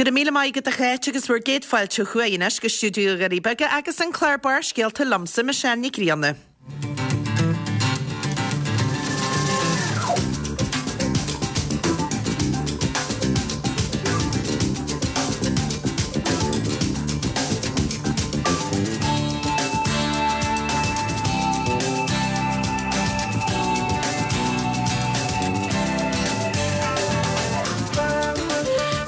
Go raibh míle maith agat a Cháit agus bhur gcéad fáilte chugainn anois go stiúideo na nDoirí Beaga agus an clár Barrscéalta liomsa, Michelle Nic Grianna.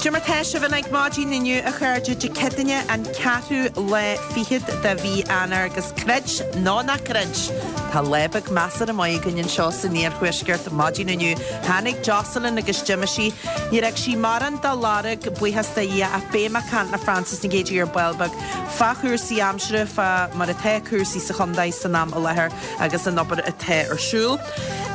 Cad é mar tá sibh ag maidin inniu a chairde Dé Céadaoine an ceathrú lá fichead de mhí Eanáir agus creid nó ná creid tá lá beag measartha maith againn anseo san iarthuaisceart maidin inniu. Tháinig Jocelyn agus d'imigh sí. Níor fhág sí mórán dá lorg, buíochas do Dhia, ach beidh mé ag caint le Frances Nic Géadaigh ar ball beag fá chúrsaí aimsire, fá mar atá cúrsaí sa chontae san am i láthair agus an obair atá ar siúl.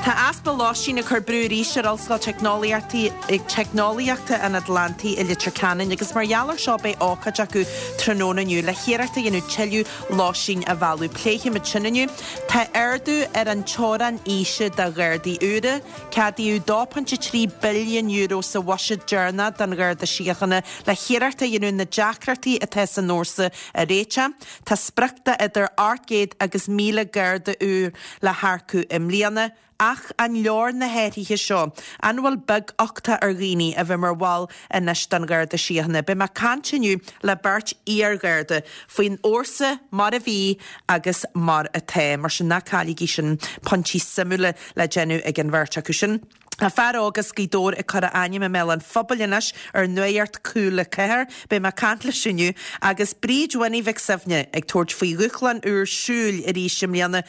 Tá easpa lóistín ag cur brú arís ar Ollscoil Teicneolaíochta an Atlantaigh i Leitir Ceanainn agus mar gheall air seo beidh ócáid acu tráthnóna inniu le hiarracht a dhéanamh tuilleadh lóistín a mhealladh. Pléifimid sin inniu. Tá ardú ar an teorainn aoise do Ghardaí úra. Ceadaíodh €2.3 billiún sa bhuiséad deireanach don Gharda Síochána le hiarracht a dhéanamh na deacrachtaí atá san fhórsa a réiteach. Tá sprioc de idir 800 agus 1,000 Garda úr le hearcú i mbliana. Ach an leor na hathruithe seo? An bhfuil beaguchtach ar dhaoine a bheith mar bhall anois den Gharda Síochána? Beidh mé ag caint inniu le beirt iar-Gharda faoin fhórsa mar a bhí agus mar atá. Mar sin ná cailligí sin, pointí suimiúla le déanamh ag an bheirt acu sin. Tá fear óg as Gaoth Dobhair ag cur a ainm i mbéal an phobail anois ar Nuacht Cúla 4. Beidh mé ag caint leis inniu. Agus Bríd Winnie Mhic Suibhne ag tabhairt faoi dhúshlán úr siúil arís i mbliana.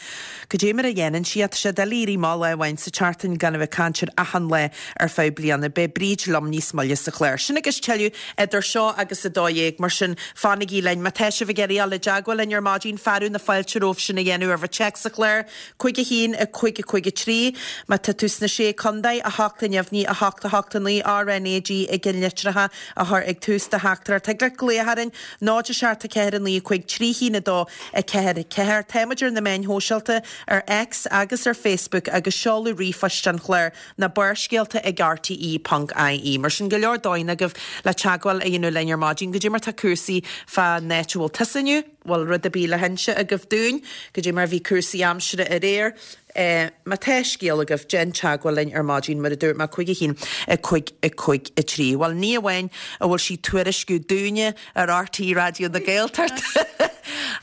Cad é mar a dhéanann sí é? Tá sé doiligh éirí amach lá amháin sa tseachtain gan a bheith ag caint ar achan lá ar feadh bliana. Beidh Bríd liom níos moille sa chlár. Sin agus tuilleadh idir seo agus 12, mar sin fanaigí linn. Má tá sibh ag iarraidh dul i dteagmháil linn ar maidin, fearadh na fáilte romhaibh sin a dhéanamh ar bhur téacs sa chlár. 5 1 5 5 3 Má tá tú sna Sé Contae, 8 neamhní, 8 8 9 RNAG i gceannlitreacha a chur ag tús do theachtaireacht. Thig leat glaoch orainn, 0 7 4 9 5 3 1 2 4 4. Tá muid ar na meáin shóisialta, ar X agus ar Facebook agus seoladh ríomhphoist an chláir ná barrscéalta ag rte ponc ie. Mar sin, go leor dóigheanna agaibh le teagmháil a dhéanamh linn ar maidin. Goidé mar tá cúrsaí fán áit a bhfuil tusa inniu. bhfuil rud ar bith le hinse agaibh dúinn, goidé mar a bhí cúrsaí aimsire aréir. Má tá scéal agaibh, déan teagmháil linn ar maidin, mar a dúirt mé, 5 1 5 5 3. Bhuel, ní amháin a bhfuil sí ag tuairisciú dúinne ar RTÉ Raidió na Gaeltachta,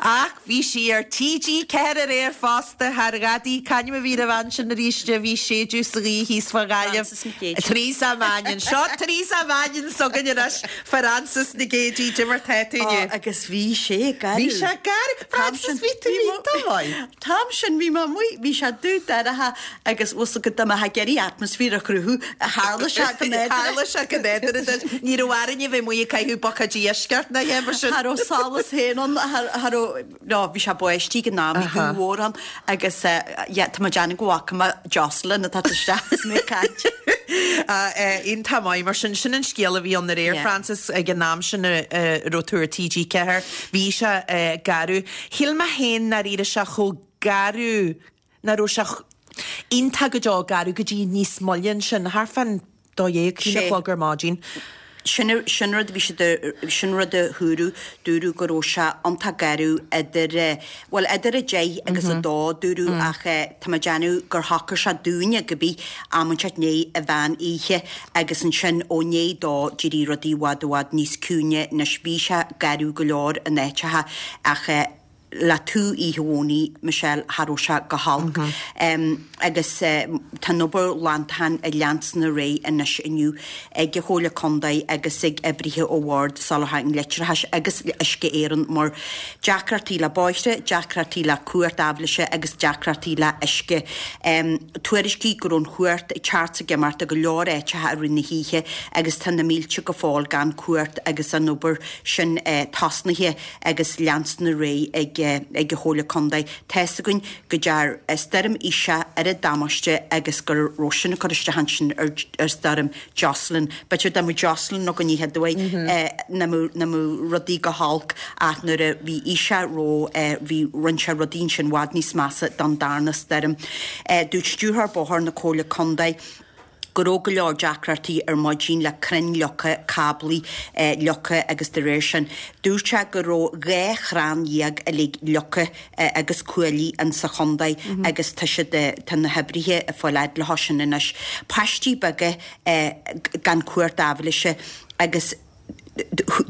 ach bhí sí ar TG4 aréir fosta, thar ghadaí, c'ainm a bhí ar an bhean sin arís a bhí ag séideadh sa ghaoth thíos fá Ghaillimh? Frances Nic Géadaigh. Teresa Mannion. Seo Teresa Mannion s'againn anois. Frances Nic Géadaigh, goidé mar tá tú inniu. Ó, agus bhí sé garbh. Bhí sé garbh. Frances, bhí tú iontach maith. An t-am sin bhí mé amuigh, bhí sé dubh dorcha agus bhfuil 's agat dá mbeifeá ag iarraidh atmaisféar a chruthú, tharla sé go nádúrtha. Tharla sé go nádúrtha duit. Ní raibh orainn a bheith amuigh ag caitheamh buicéid uisce ort ná a dhath mar sin. Cha raibh solas féin ann, cha raibh. No, bhí sé báistí ag an am, bhí gaoth mhór ann agus yeah, tá mé ag déanamh go bhfaca mé Jocelyn ag teacht isteach is mé ag caint. Iontach maith, mar sin, sin an scéal a bhí ann aréir, Yeah. Frances, ag an am sin a raibh tú ar TG4, bhí sé garbh. Shíl mé féin nach raibh sé chomh garbh, nach raibh sé iontach go deo garbh go dtí níos moille ansin, thart fán 12, 1 a chlog ar maidin. Sin, sin rud a bhí siad a, sin rud a dúradh, dúradh go raibh sé iontach garbh idir, bhuel idir a deich agus a dó dúradh ach tá mé ag déanamh gur shocair sé dúinne go bith am inteacht i ndiaidh an mheán oíche agus ansin ó ndiaidh dó d'éirigh rudaí i bhfad i bhfad níos ciúine anois bhí sé garbh go leor in áiteacha ach le tú oíche Dhomhnaigh, Michelle, cha raibh sé go holc. Agus tá an obair ghlantacháin ag leanstan ar aghaidh anois inniu ag an Chomhairle Contae agus ag oibrithe ó Bhord Soláthair an Leictreachais agus Uisce Éireann mar deacrachtaí le bóithre, deacrachtaí le cumhacht aibhléise agus deacrachtaí le uisce. Tuairiscíodh go raibh an chumhacht ag teacht 's ag imeacht i go leor áiteacha i rith na hoíche agus tá na mílte go fóill gan cumhacht agus an obair sin tosnaithe. agus leanstan ar aghaidh ag ag an Chomhairle Contae. Tá's againn go dtear Stoirm Isha oiread damáiste agus go raibh sin ag cur isteach ansin ar ar Stoirm Jocelyn. B'fhéidir dá mbeadh Jocelyn againn oíche Domhnaigh nach mbeadh nach mbeadh rudaí go holc ach nuair a bhí Isha ró bhí rinne sé rudaí ansin i bhfad níos measa don darna stoirm. Dúirt Stiúrthóir Bóthair na Comhairle Contae. Go raibh go leor deacrachtaí ar maidin le crainn leagtha, cáblaí leagtha agus de réir sin. Dúirt sé go raibh 12 chrann uilig leagtha agus cuaillí in sa chontae agus tá siad, tá na hoibrithe ag fáil fhad leo sin anois. Paistí beaga gan cumhacht aibhléise agus.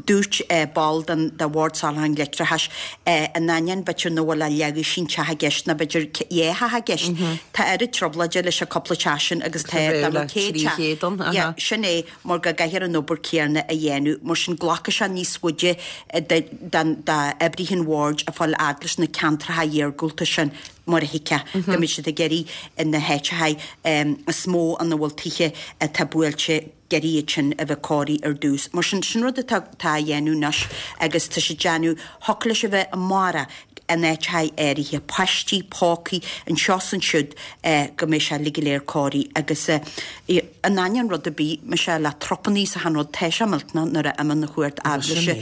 Dúirt ball den de Bhord Soláthair an Leictreachais, in ainneoin b'fhéidir nach bhfuil ach leathdhosaen teach i gceist nó b'fhéidir dhá theach i gceist, tá oiread trioblóide leis an cúpla teach sin agus tá dá mbeadh 100 teach. Yeah, sin é, mar go gcaithfear an obair céanna a dhéanamh. Mar sin glacfaidh sé níos faide d'oibrithe an bhoird a fáil fhad leis na ceantracha iargúlta sin mar a thuigfeá, go mbeidh siad ag iarraidh na háiteacha is mó ina bhfuil tithe atá buailte ag iarraidh iad sin a bheith cóirithe ar dtús. Mar sin, sin rud atá á dhéanamh anois agus tá siad déanamh, thiocfadh leis a bheith amárach in áiteacha áirithe, paistí, pócaí, anseo is ansiúd go mbeidh sé uilig go léir cóirithe agus in ainneoin rud ar bith, mise le trupannaí is achan rud, tá sé millteanach nuair a imíonn an chumhacht aibhléise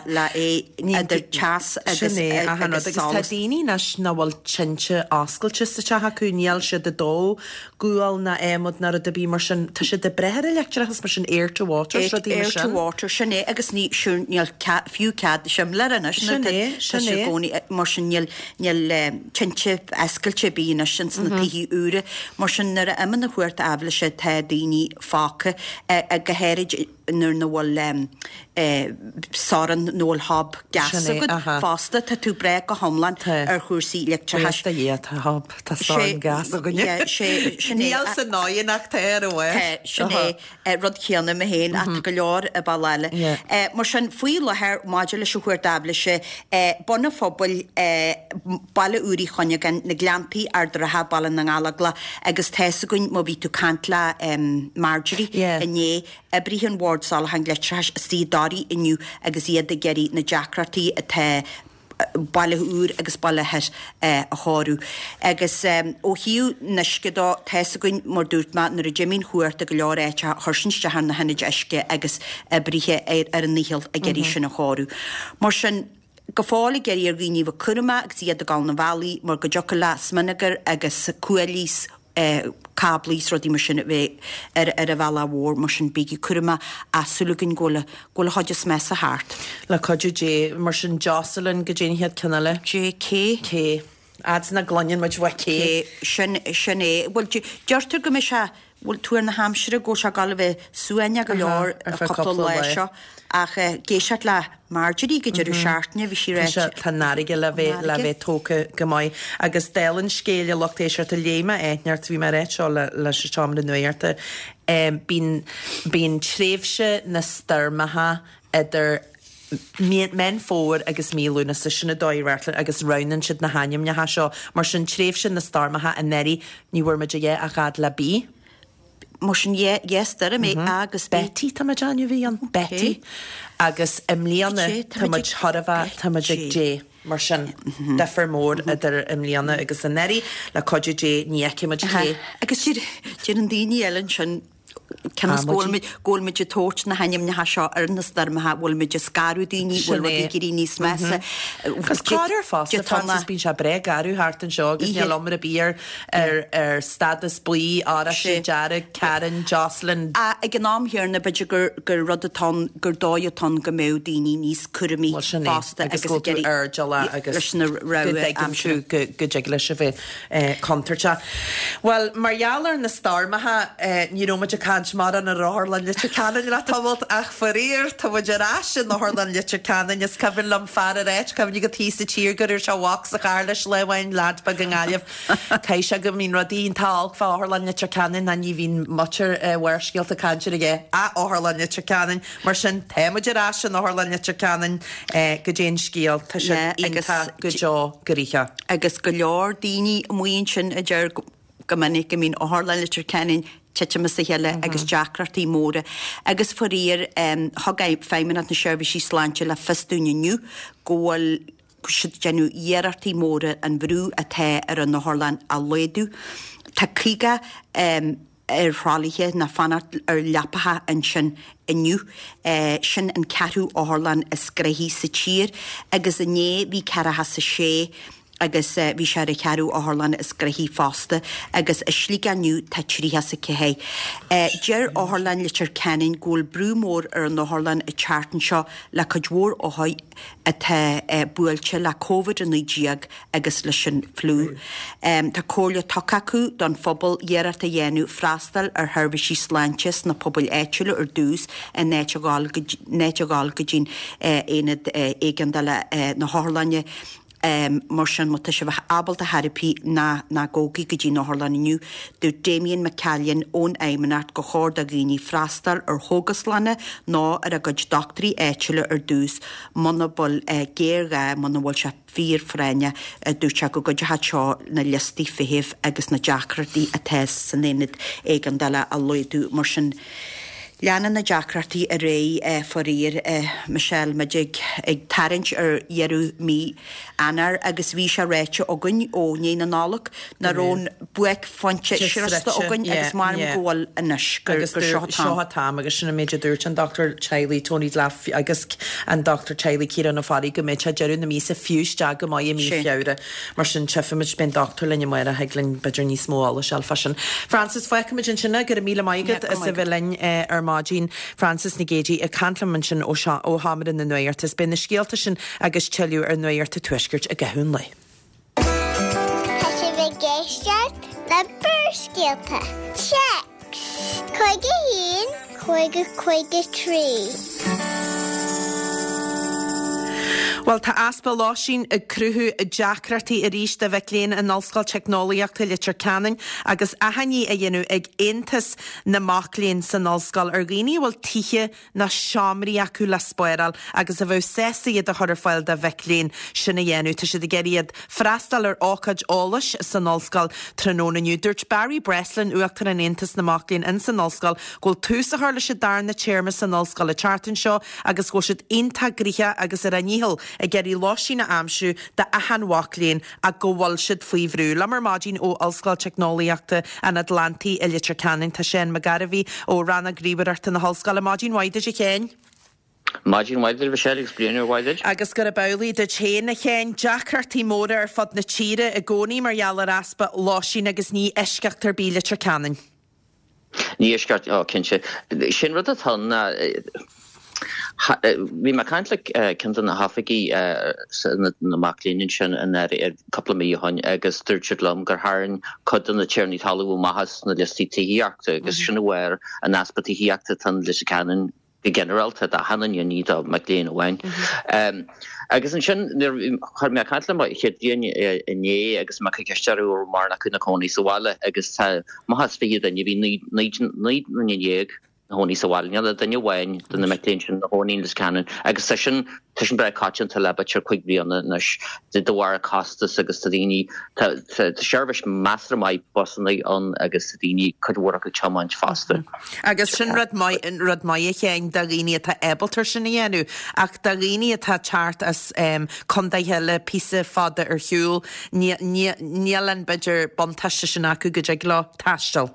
le é idir teas agus Sin é, achan rud. Agus tá daoine anois nach bhfuil tinte oscailte sa teach acu, níl siad ag dó gual ná adhmad ná rud ar bith mar sin. Tá siad ag brath ar an leictreachas mar sin, air to water, is rudaí mar sin. Air to water, sin é agus ní, sure, níl cead, fiú cead simléar anois Sin é, sin é. gcónaí, mar sin níl, níl tinte oscailte ar bith anois ins na tithe úra. Mar sin nuair a imíonn an chumhacht aibhléise tá daoine fágtha, go háirid nuair nach bhfuil sorn nó bhfuil hob gas agat fosta, tá tú ag brath go hiomlán ar chúrsaí leictreachais. Buíochas do Dhia, tá hob, tá sorn gas againne. Níl san oigheann ach tá ar an bhfás. Tá, sin é, rud céanna mé féin ach tá go leor i ball eile. Mar sin, faoi láthair, maidir leis an chumhacht aibhléise, Bun an Phobail, Baile Úr Uí Chuinneagáin, na Gleanntaí, Ard an Rátha, Baile na nGallóglach agus tá's againn má bhí tú ag caint le Marjorie inné, Oibrithe an Bhoird Soláthair Leictreachais istigh i dToraigh inniu agus iad ag iarraidh na deacrachtaí atá Baile Úr agus Baile Thoir a chóiriú. Agus ó thaobh an uisce dó, tá's againn, mar dúirt mé, nuair a d'imigh an chumhacht i go leor áiteacha, chuir sin isteach ar na hionaid uisce agus oibrithe ar a ndícheall ag iarraidh sin a chóiriú. Mar sin, go fóill ag iarraidh ar dhaoine a bheith cúramach agus iad ag dul na bhealaí mar go dtiocfadh le smionagar agus cuaillí cáblaí is rudaí mar sin a bheith ar ar an bhealach mhór mar sin bígí cúramach ach súil againn go bhfuil go bhfuil an chuid is measa thart. Le cuidiú Dé. Mar sin Jocelyn goidé an chéad ceann eile. J K. K. Fhad is nach gcluineann muid uaidh K. K. Sin sin é. Bhuel deirtear go mbeidh sé bhuel tuar na haimsire go bhfuil sé ag dul a bheith suaimhneach go leor Ar feadh cúpla lá seo ach ag éisteacht le Marjorie go deireadh seachtaine bhí sí Tá sé, tá an fharraige le bheith, le bheith tógtha go maith. Agus dála an scéil a lucht éisteachta, léigh mé áit inteacht, bhí mé ag ráit seo le, leis an seomra nuachta, bíonn, bíonn tréimhse na stoirmeacha idir Mí, Meán Fómhair agus mí Lúnasa, sin an dóigh a reáchtálann agus roghnaíonn siad na hainmneacha seo. Mar sin, tréimhse na stoirmeacha anuraidh, ní bhfuair muid a dhath ach fhad le B. Mar sin, yeah, stoirm é A agus B. Betty, tá mé ag déanamh a bhí ann. Betty. Agus i mbliana, tá muid chóir a bheith, tá muid ag J. Mar sin, difear mór idir i mbliana agus anuraidh. Le cuidiú Dé, ní fheicfidh muid K. Agus deireann daoine eile ansin, cionn is go bhfuil muid, go bhfuil muid ag tabhairt na hainmneacha seo ar na stoirmeacha, bhfuil muid ag scanrú daoine, bhfuil rudaí ag éirí níos measa. Agus corruair fosta, Frances, bíonn sé breá garbh thart anseo agus níl iomrá ar bith ar ar stádas buí, oráiste, dearg, Karen, Jocelyn. Ag an am chéanna, b'fhéidir gur gur rud atá ann, gur dóigh atá ann go mbeadh daoine níos cúramaí Bhuel, sin é, fosta agus go bhfuil tú airdeallach agus leis na go rogha dtuigeann aimsire. tú go go dtig leis a bheith contúirteach. Bhuel, mar gheall ar na stoirmeacha, ní raibh muid ag caint mórán ar Otharlann Leitir Ceanainn le tamalt ach faraor, tá muid ar ais in Otharlann Leitir Ceanainn. Is cuimhin liom fear ag ráit, cuimhnigh agat thíos sa tír go raibh sé a mhac sa charr leis lá amháin, leaid beag i nGaillimh, Caithfidh sé go mbíonn rudaí iontach olc fá Otharlann Leitir Ceanainn ná ní bhíonn muintir Bharrscéalta ag caint ar a dhath ach Otharlann Leitir Ceanainn. Mar sin, tá muid ar ais in Otharlann Leitir Ceanainn. Goidé an scéal? Tá siad iontach go deo gnoitheach. Agus go leor daoine amuigh ansin a deir go minic go mbíonn Otharlann Leitir Ceanainn titim as a chéile agus deacrachtaí móra. Agus faraor, thug Feidhmeannacht na Seirbhísí Sláinte le fios dúinn inniu go bhfuil siad ag déanamh iarrachtaí móra an bhrú atá ar an otharlann a laghdú. Tá 50 ar thralaithe ná fanacht ar leapacha ansin inniu. Sin an ceathrú otharlann is gnoithí sa tír agus inné bhí 46. Agus bhí sé ar an cheathrú otharlann is gnoithí fosta agus i Sligeach inniu tá 34. Deir Otharlann Leitir Ceanainn go bhfuil brú mór ar an otharlann an tseachtain seo le cuid mhór othair atá buailte le Covid-19 agus leis an fliú. Tá comhairle tugtha acu don phobal iarracht a dhéanamh freastal ar sheirbhísí sláinte sna pobail áitiúla ar dtús in áit a dhul go dtí'n aonad éigeandála na hotharlainne. Mar sin, má tá sibh ábalta ar chor ar bith, ná ná gabhaigí go dtí an otharlann inniu. Dúirt Damien McCallion ón Fheidhmeannacht gur chóir do dhaoine freastal ar chógaslanna nó ar a gcuid dochtúirí áitiúla ar dtús muna bhfuil géarghá, muna bhfuil sé fíorphráinneach. Dúirt sé go gcuideochadh seo na liostaí feithimh agus na deacrachtaí atá san aonad éigeandála a laghdú. Mar sin, leanann na deacrachtaí ar aghaidh faraor, Michelle, muid ag tarraingt ar dheireadh mí Eanáir agus bhí sé ráite againn ó ndiaidh na Nollag nach raibh an buaicphointe sroiste againn agus maram go bhfuil anois, gur seo an t-am. Seo an t-am agus sin an méid a dúirt an dochtúir teaghlaigh Tony Delap agus an dochtúir teaghlaigh Ciarán Ó Fearraigh go mbeidh sé deireadh na míosa fiú isteach go maith i mí Feabhra. Mar sin, tchífimid, beidh an dochtúir linn amárach, thig linn b'fhéidir níos mó eolais a fháil fá sin. Frances, fágfaimid ansin é, go raibh míle maith agat as a bheith linn ar maidin. Frances Nic Géadaigh ag caint liom ansin ó Sheomra na Nuachta is beidh na scéalta sin agus tuilleadh ar Nuacht an Tuaiscirt i gcaitheamh an lae. Tá sibh ag éisteacht le Barrscéalta. Téacs 51 50 53. Bhuel, tá easpa lóistín ag cruthú deacrachtaí arís do mhic léinn in Ollscoil Teicneolaíochta Leitir Ceanainn agus achainí á dhéanamh ag Aontas na Mac Léinn san ollscoil ar dhaoine a bhfuil tithe nó seomraí acu le spáráil agus a bheadh sásta iad a chur ar fáil do mhic léinn sin a dhéanamh. Tá siad ag iarraidh iad freastal ar ócáid eolais san ollscoil tráthnóna inniu. Dúirt Barry Breslin, Uachtarán Aontas na Mac Léinn ins an ollscoil, go bhfuil tús á chur leis an darna téarma san ollscoil an tseachtain seo agus go bhfuil siad iontach gnoitheach agus ar a ndícheall ag iarraidh lóistín a aimsiú d'achan mhac léinn ach go bhfuil siad faoi bhrú. Liom ar maidin ó Ollscoil Teicneolaíochta an Atlantaigh i Leitir Ceanainn tá Seán Mac Gairbhí ó Rannóg Ríomhaireachta na hOllscoile. Maidin mhaith duit a Sheáin. Maidin mhaith duit a Mhichelle agus bliain úr mhaith duit. Agus gurb amhlaidh duit féin a Sheáin. Deacrachtaí móra ar fud na tíre i gcónaí mar gheall ar easpa lóistín agus ní eisceacht ar bith Leitir Ceanainn. Ní eisceacht, ó cinnte. Sin rud atá ann ná, bhí mé ag caint le ceann de na hoifigigh na mac léinn ansin anuraidh, cúpla mí ó shin agus dúirt siad liom gur tharraing cuid de na tiarnaí talún amach as na liostaí tithíochta agus sin de bharr an easpa tithíochta atá in Leitir Ceanainn go ginearálta, d'achan duine, ní do mhic léinn amháin. Agus ansin, nuair a chuir mé ag caint le mo chéad bhliain inné agus mé ag cur ceist orthu an raibh mórán acu ina cónaí sa bhaile agus tá amach as 20 duine, bhí 19 nduine ina chónaí sa bhaile, níl ach duine amháin de na mic léinn sin ina chónaí in Leitir Ceanainn agus tá sin, tá sin breá coitianta le b'fhéidir 5 bliana anois de bharr costas agus tá daoine, tá seirbhís measartha maith busanna ann agus tá daoine, cuid mhór acu ag tiomáint fosta. Agus sin rud maith, rud maith a Sheáin, do dhaoine atá ábalta sin a dhéanamh, ach do dhaoine atá ag teacht as contaetha eile píosa fada ar shiúl, níl an, b'fhéidir, buntáiste sin acu go dtig leo taisteal.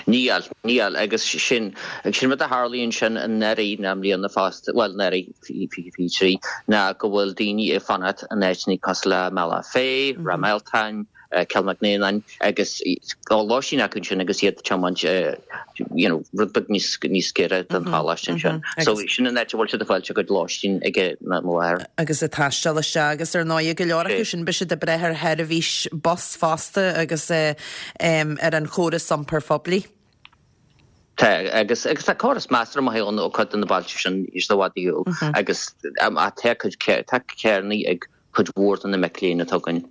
Níl, níl, agus sin, sin rud a tharlaíonn sin anuraidh ná i mbliana fosta, bhuel, anuraidh, 2023, ná go bhfuil daoine ag fanacht in áiteanna cosúil le Bealach Féich, Ráth Mealtain, Cill Mhic Néanáin agus tá lóistín acu ansin agus iad ag tiomáint you know rud beag níos níos gaire don choláiste ansin. So sin an áit a bhfuil siad ag fáilt a gcuid lóistín ag an am i láthair. Agus ag taisteal isteach agus ar ndóigh go leor acu sin beidh siad ag brath ar sheirbhís bus fosta agus ar an chóras iompair phoiblí. Tá, agus agus tá córas measartha maith ann ó cuid de na bailte sin níos i bhfad ar shiúl agus tá cuid tá carranna ag cuid mhór de na mic léinn atá againn.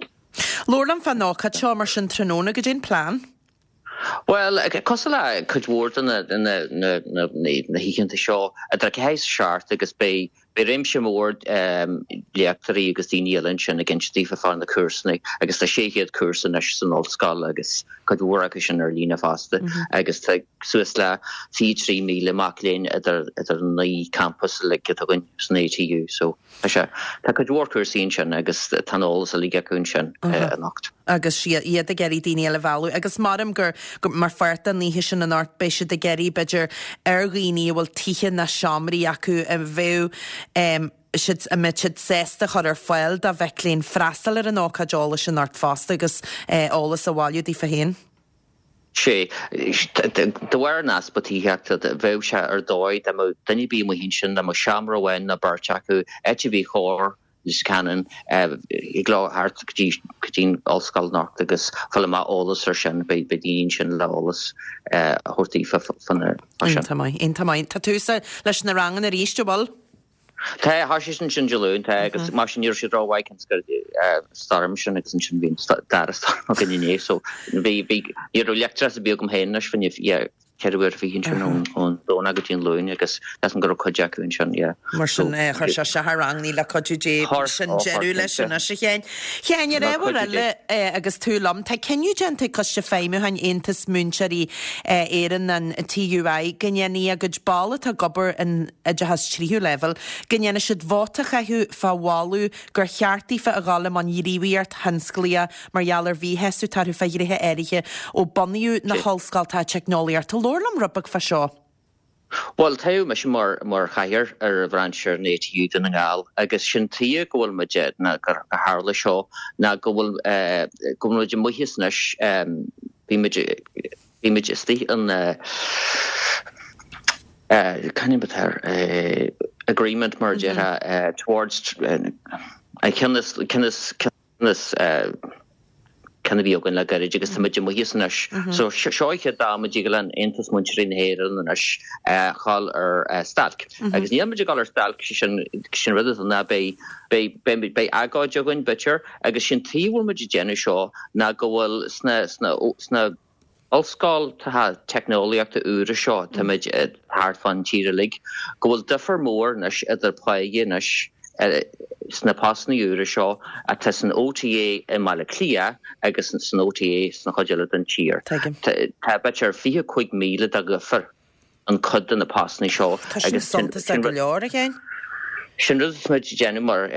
Labhair liom fán ócáid seo mar sin tráthnóna, goidé an plean? Bhuel, cosúil le cuid mhór de na hoícheanta seo, idir 4 is 7 agus beidh réimse mór léachtóirí agus daoine eile ansin ag inse daofa fá na cúrsanna agus tá 600 cúrsa anois san ollscoil agus cuid mhór acu sin ar líne fosta agus tá suas le 23,000 mac léinn idir an 9 campas uilig atá againn san ATU. So. Tá sé. Tá cuid mhór cúrsaí ansin agus tá an eolas uilig acu ansin anocht. Agus iad ag iarraidh daoine eile a mhealladh. Agus maram gur, mar pháirt den oíche sin anocht, beidh siad ag iarraidh, b'fhéidir, ar dhaoine a bhfuil tithe ná seomraí acu a bheadh. siad, an mbeidh siad sásta chur ar fáil do mhic léinn freastal ar an ócáid eolais anocht fosta agus eolas a bhailiú daofa féin. Sea. De bharr an easpa tithíochta, bheadh sé ar dóigh dá mbeadh duine ar bith amuigh ansin, dá mbeadh seomra amháin nó beirt acu, áit ar bith chóir Leitir Ceanainn, thig leo theacht go dtí go dtí an ollscoil anocht agus fáil amach eolas ar sin, beidh daoine ansin le eolas a thabhairt daofa fá sin. Iontach maith, iontach maith. Tá tús leis na ranganna arís, an bhfuil? Tá, thoisigh siad ansin Dé Luain, tá, agus mar sin ní raibh siad rómhaith cionn is go raibh stoirm sin agus ansin bhí an dara stoirm againn inné so bhí, bhí, ní raibh leictreachas ar bith agam féin anois fá choinne, yeah, 24 uair ansin ón Domhnach go dtí an Luan agus measaim go raibh cuid acu ansin, yeah. Mar sin, chuir sé isteach ar ranganna le cuidiú Dé, sin deireadh leis anois a Sheáin. Sheáin, ar ábhar eile agus tú liom, tá cinneadh déanta ag Coiste Feidhmiúcháin Aontas Múinteoirí Éireann, an TUI, go ndéanfaidh a gcuid ball atá ag obair in oideachas tríú leibhéal, go ndéanfaidh siad vóta a chaitheamh fá mholadh gur cheart daofa a dhul i mbun gníomhaíocht thionsclaíoch mar gheall ar mhíshásamh atá orthu fá ghnéithe áirithe ó bunaíodh na hollscoltacha teicneolaíochta. Labhair liom rud beag fá seo. Bhuel, toghadh mise mar mar chathaoir ar bhrainse an ATU Dún na nGall agus sin tuige go bhfuil muid, ná gur tharla seo, ná go bhfuil go bhfuil muid amuigh as anois, bhí muid, bhí muid istigh in cén ainm atá air, agreement mar a déarfá towards an ceann is ceann is ceann is ceann a bhí againn le gairid agus tá muid amuigh as anois. So seo an chéad am a dtig le Aontas Múinteoirí na hÉireann anois dhul ar stailc. Agus níl muid ag dul ar stailc, sé sin sin rud atá ná beidh beidh beidh beidh agóid againn b'fhéidir agus sin tuige a bhfuil muid ag déanamh seo ná go bhfuil sna sna sna ollscoltacha teicneolaíochta úra seo, táimid thart fán tír uilig, go bhfuil difear mór anois idir páighe anois sna postanna úra seo atá san OTA i mBaile Átha Cliath agus san OTA sna chuid eile den tír. Tá b'fhéidir 25,000 de dhifear. an cuid de na postanna seo. Tá sin suntasach go leor, a Sheáin. Sin rud atá muid ag déanamh mar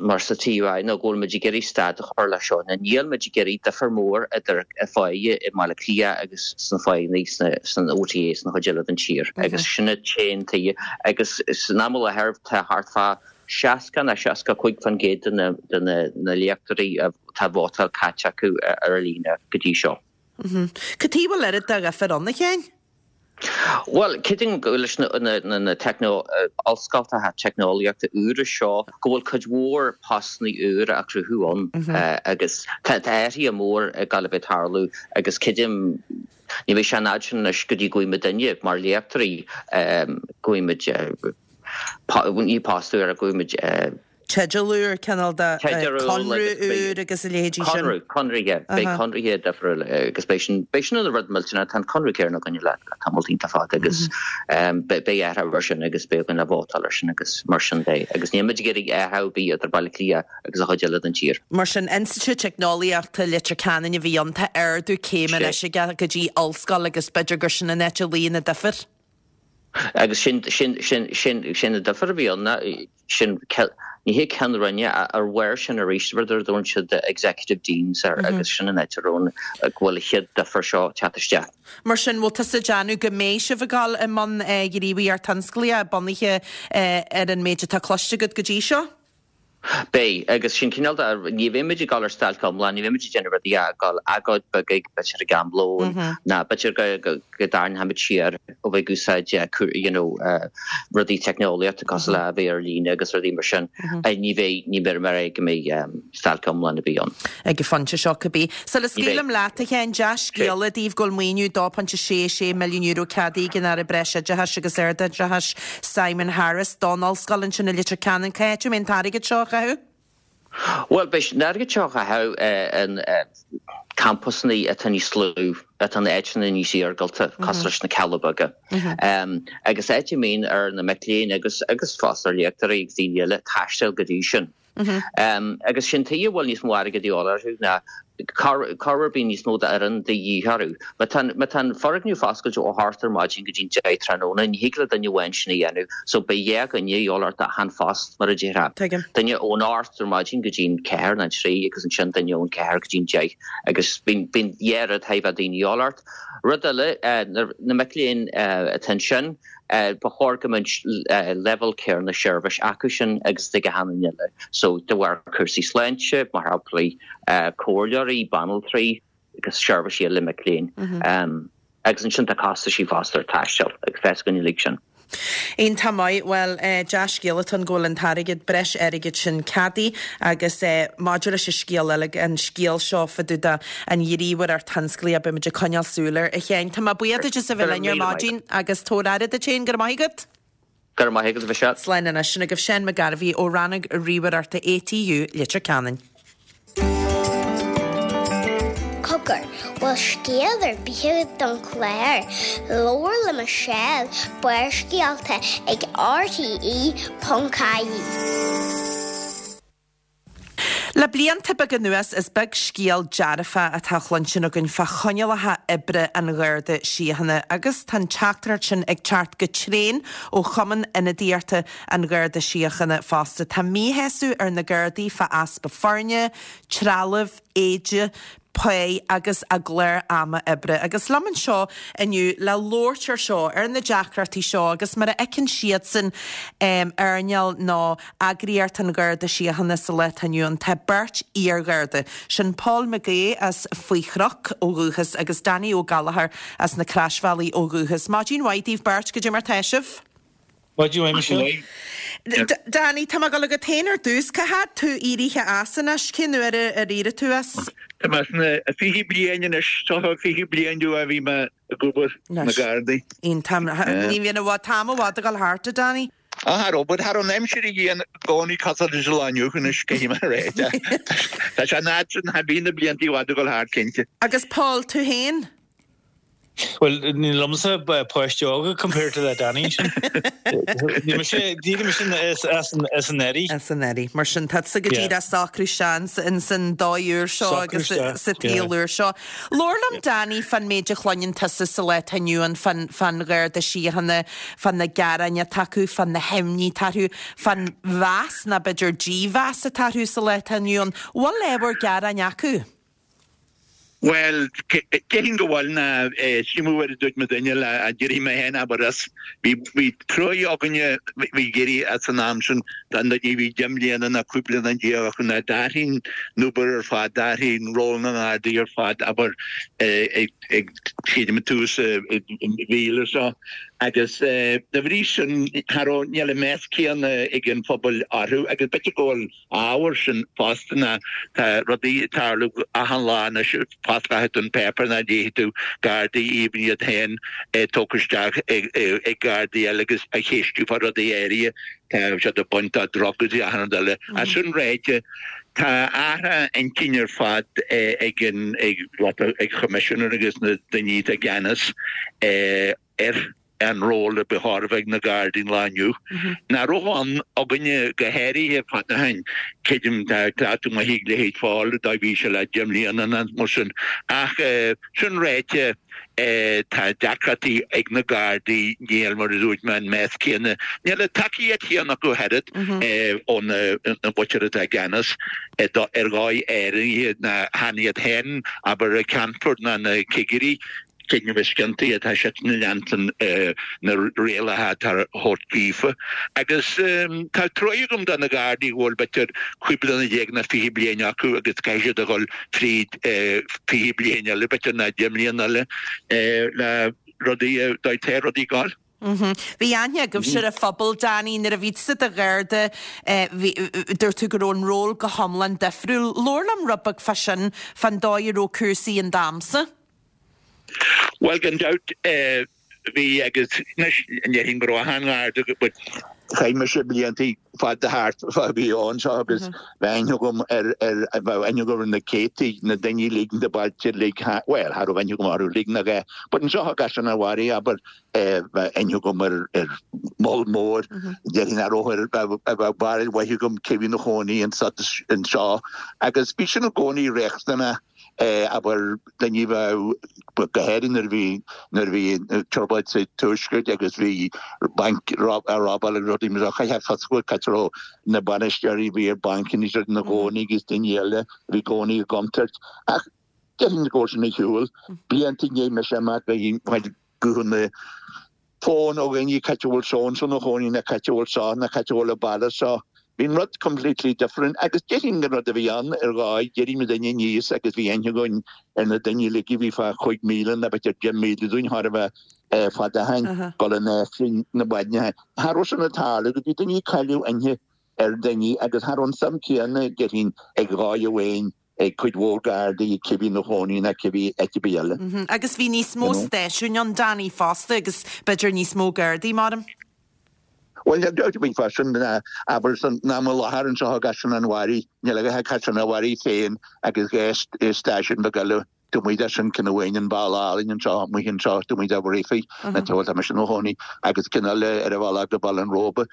mar sa TUI ná go bhfuil muid ag iarraidh stad a chur leis seo. Ná níl muid ag iarraidh difear mór idir pháighe i mBaile Átha Cliath agus sna pháigheanna sna san OTA sna chuid eile den tír. Agus sin an t-aon tuige. Agus san am i láthair tá thart fá 60 nó 65% de na de na na léachtóirí atá vótáil caite acu ar líne go dtí seo. Cad chuige a bhfuil oiread de dhifear ann, a Sheáin? Bhuel, creidim go leis na ollscoltacha teicneolaíochta úra seo go bhfuil cuid mhór postanna úra á cruthú ann agus tá athruithe mór ag gabháil a bheith ag tarlú agus creidim ní bheidh sé an fhad sin anois go dtí go bhfaighidh muidinne mar léachtóirí go bhfaighidh muid ní post úr ach go bhfaighidh muid teideal úr, cineál de conradh úr agus a leithéidí sin. Conradh, conraithe, beidh conraithe difriúil agus beidh sin, beidh sin ina rud millteanach, tá an conradh céanna againn le tamall iontach fada agus beidh athrú ar sin agus beidh againn le vótáil ar sin agus mar sin de agus níl muid ag iarraidh athrú ar bith idir Baile Átha Cliath agus an chuid eile den tír. Mar sin, Institiúid Teicneolaíochta Leitir Ceanainn a bhí ann, tá ardú céime anois aige go dtí ollscoil agus b'fhéidir gur sin an áit a luíonn an difear. Agus sin, sin, sin, sin, sin an difear a bhí ann, ná sin, ní hé ceann roinne, ar bharr sin arís, rud ar a dtabharann siad executive deans air agus sin an áit a raibh an, go bhfuil an chéad difear seo ag teacht isteach. Mar sin, bhfuil tusa ag déanamh go mbeidh sibh ag dul i mbun gníomhaíocht thionsclaíoch bunaithe ar an méid atá cloiste agat go dtí seo? Beidh, agus sin cineál de, ní bheidh muid ag dul ar stailc iomlán, ní bheidh muid ag déanamh rudaí ach ag dul agóid beag ag, b'fhéidir ag am lóin, ná b'fhéidir go, go, go dtarraingeoidh muid siar ó bheith ag úsáid you know rudaí teicneolaíochta cosúil le a bheith ar líne agus rudaí mar sin. Ní bheidh, ní bheidh mar é go mbeidh stailc iomlán ar bith ann. Ag an phointe seo cibé. Sula scaoilim leat, a Sheáin, dea-scéala daoibh go bhfuil maoiniú €2.66 milliún ceadaithe ag an Aire Breisoideachais agus Ardoideachais, Simon Harris, don ollscoil ansin i Leitir Ceanainn. Cá háit a mbeidh an t-airgead seo á chaitheamh? Bhuel, beidh an airgead seo á chaitheamh in campusanna atá níos lú, atá in áiteanna níos iargúlta, cosúil leis na Cealla Beaga. Agus áit a mbíonn ar na mic léinn agus agus fosta ar léachtóirí agus daoine eile taisteal go dtí sin. Agus sin tuige a bhfuil níos mó airgid a dhíobháil orthu ná. Corruair bíonn níos mó d'fhoireann de dhíth orthu. Má tá má tá an foirgneamh foscailte ó hocht ar maidin go dtí'n deich tráthnóna, ní thig le duine amháin sin a dhéanamh, so beidh dhá dhuine a dhíobháil ort achan phost, mar a déarfá. Tuigim. Duine ón ocht ar maidin go dtí'n ceathair nó an trí agus ansin duine ón ceathair go dtí'n deich agus bíonn bíonn dhá rud chaithfidh bheith daoine a dhíobháil ort. Rud eile, na mic léinn atá ansin, ba chóir go mbeadh leibhéal céanna seirbhís acu sin agus ag achan duine eile. So de bharr cúrsaí sláinte, mar shampla, comhairleoirí, banaltraí agus seirbhísí eile mic léinn. Agus ansin tá costaisí fosta ar taisteal agus tá a fhios againn uilig sin. Iontach maith. Bhuel, dea-scéal atá ann go bhfuil an t-airgead, breis airgid sin ceadaithe agus maidir leis an scéal eile, an scéal seo fá dtaobh de an ghníomhaireacht thionsclaíoch, beidh muid ag coinneáil súil air. A Sheáin, tá mé buíoch duit as a bheith linn ar maidin agus tabhair aire duit féin. Go raibh maith agat. Go raibh maith agat, a Mhichelle. Slán anois. Sin agaibh Seán McGarvey ó Rannóg Ríomhaireachta ATU, Leitir Ceanainn. Cogar, bhfuil scéal ar bith agat don chlár? Labhair le Michelle, Barrscéalta ag RTE.ie. Le blianta beaga anuas is beag scéal dearfach atá á chluinstin againn fá choinníollacha oibre an Gharda Síochána agus tá an teachtaireacht sin ag teacht go tréan ó Chumann Ionadaíochta an Gharda Síochána fosta. Tá míshásamh ar na Gardaí fá easpa foirne, trealaimh, éide, pá agus a gclár ama oibre. Agus liom anseo inniu le labhairt ar seo, ar na deacrachtaí seo agus mar a fheiceann siadsan earnáil nó eagraíocht an Gharda Síochána sa lá atá inniu ann, tá beirt iar-Gharda, sin Paul McGaugh as Faoi Chnoc ó dhúchas agus Danny Ó Gallchóir as na Croisbhealaí ó dhúchas. Maidin mhaith daoibh beirt, goidé mar tá sibh? Maidin mhaith, Michelle. Danny, tá mé ag dul agat féin ar dtús. Cá fhad tú éirithe as anois? Cén uair ar éirigh tú as? Tá mé sna 20 bliain anois, seo 20 bliain ó bhí mé ag obair sna Gardaí. Iontach. Ní bhíonn i bhfad, t-am i bhfad ag dul thart, a Danny. Ah, cha raibh, but cha raibh an aimsir a dhian i gcónaí cosúil leis an lá inniu anois, caithfidh mé a rá. Tá sé an fhad sin, bhí na blianta i bhfad ag dul thart, cinnte. Agus Paul, tú féin? Bhuel, níl liomsa páiste óga compared to le Danny sin. Níl mise, d'éirigh mise as as anuraidh. As anuraidh. Mar sin, tá tusa go díreach ag socrú isteach ins an dóigh úr seo agus sa tsaol úr seo. Labhair liom Danny fán méid a chluineann tusa sa lá atá inniu ann fán fán Gharda Síochána, fá na gearáin atá acu, fá na himní atá orthu, fán mheas nó b'fhéidir dímheas atá orthu sa lá atá inniu ann. Bhfuil ábhar gearáin acu? Bhuel, déarfainn go bhfuil ná sílim mar a dúirt mo dhuine le d'éirigh mé féin abair as. Bhí bhí truaí againne bhí ag éirí as an am sin don duine a bhí deich mbliana ná 15 bliana acu ná d'athraigh an obair ar fad, d'athraigh an ról na nGardaí ar fad abair ag ag sílim ag tús an mhíle seo agus de bhrí sin cha raibh níl an meas céanna ag an phobal orthu agus b'fhéidir go bhfuil ábhar sin fosta ná tá rudaí ag tarlú achan lá anois, fosclaíonn tú an páipéar ná léifidh tú Gardaí even iad féin tógtha isteach ag Gardaí eile agus á cheistiú fá rudaí áirithe, tá siad ag baint de drugs agus achan rud eile. Ach sin ráite, tá athrú intinne ar fad ag an ag Choimisinéir agus na daoine atá i gceannas ar an ról a ba chóir a bheith ag na Gardaí an lá inniu. Nach raibh ann againne go háirithe fad ó shin. Creidim tá cleachtadh maith ag leithéid Phóil dá bhí sé le 10 mbliana nó mar sin. Ach sin ráite tá deacrachtaí ag na Gardaí, níl mar a dúirt mé an meas céanna, níl an tacaíocht chéanna acu ach oiread ó na muintir atá i gceannas ar dhóigh áirithe ná chan iad féin abair an Ceannfort ná na cigirí. Cinneadh is ciontaí atá siad ag leanstan na rialacha atá á thabhairt daofa. Agus tá truaighe agam do na Gardaí go bhfuil b'fhéidir 15 bliana nó 20 bliain acu agus caithfidh siad a dhul fríd 20 bliain eile b'fhéidir nó 10 mbliana eile le rudaí, dá dtéadh rudaí ag gabháil. Bhí aithne agaibhse ar an phobal, Danny, nuair a bhí tusa i do Gharda, dúirt tú go raibh an ról go hiomlán difriúil. Labhair liom rud beag fá sin, fán dóigh a raibh cúrsaí in d'amsa. Bhuel, gan dabht, bhí agus anois ní déarfainn go raibh achan Gharda but chaith mise blianta fada thart fá bhí ann seo agus bheadh aithne agam ar ar bheadh aithne agam ar na céadtaí na daoine uilig na bailte uilig bhuel cha raibh aithne agam orthu uilig nach ea but anseo i gCaisleán an Bharraigh abair bheadh aithne agam ar ar moll mór déarfainn nach raibh ar bheadh bheadh barúil mhaith agam cé bhí ina chónaí anseo agus bhí sin i gcónaí riachtanach. Abair, daoine a bheadh, go háirithe nuair a bhí, nuair a bhí trioblóid sa Tuaisceart agus bhí bainc á robáil agus rudaí mar seo, chaithfeá fios a fháil cá raibh na bainisteoirí a bhí ar bancanna is ina gcónaí agus daoine eile a bhí i gcónaí i gcontúirt. Ach déarfainn go bhfuil sin ar shiúl. Blianta i ndiaidh mise amach bhí guthanna fón ó dhaoine cá háit a bhfuil so and so ina chónaí nó cá háit a bhfuil seo nó cá háit a bhfuil an baile seo. Bhí an rud completely different agus déarfainn an rud a bhí ann ar dhóigh, d'éirigh muidinne aníos agus bhí aithne againn ar na daoine uilig a bhí fá chúig mhíle nó b'fhéidir 10 míle dúinn chóir a bheith fada ó shin, dul in Aifreann na maidne. Cha raibh sin ag tarlú go bhí daoine ag cailleadh aithne ar daoine agus cha raibh an suim céanna déarfainn ag dhóigh amháin ag cuid mhór Gardaí, cibé ina chónaí ná cibé áit ar bith eile. Agus bhí níos mó stáisiúin ann, Danny, fosta agus b'fhéidir níos mó Gardaí, maram. Bhuel, níl dabht ar bith fá sin, abair, san am i láthair anseo i gCaisleán an Bharraigh, níl a dhath ach Caisleán an Bharraigh féin agus dhá stáisiún beag eile taobh amuigh de sin, ceann amháin in Baile Álainn anseo, amuigh anseo, taobh amuigh de Bhreifne, na bhuel, tá mise i mo chónaí, agus ceann eile ar an bhealach go Baile an Róba.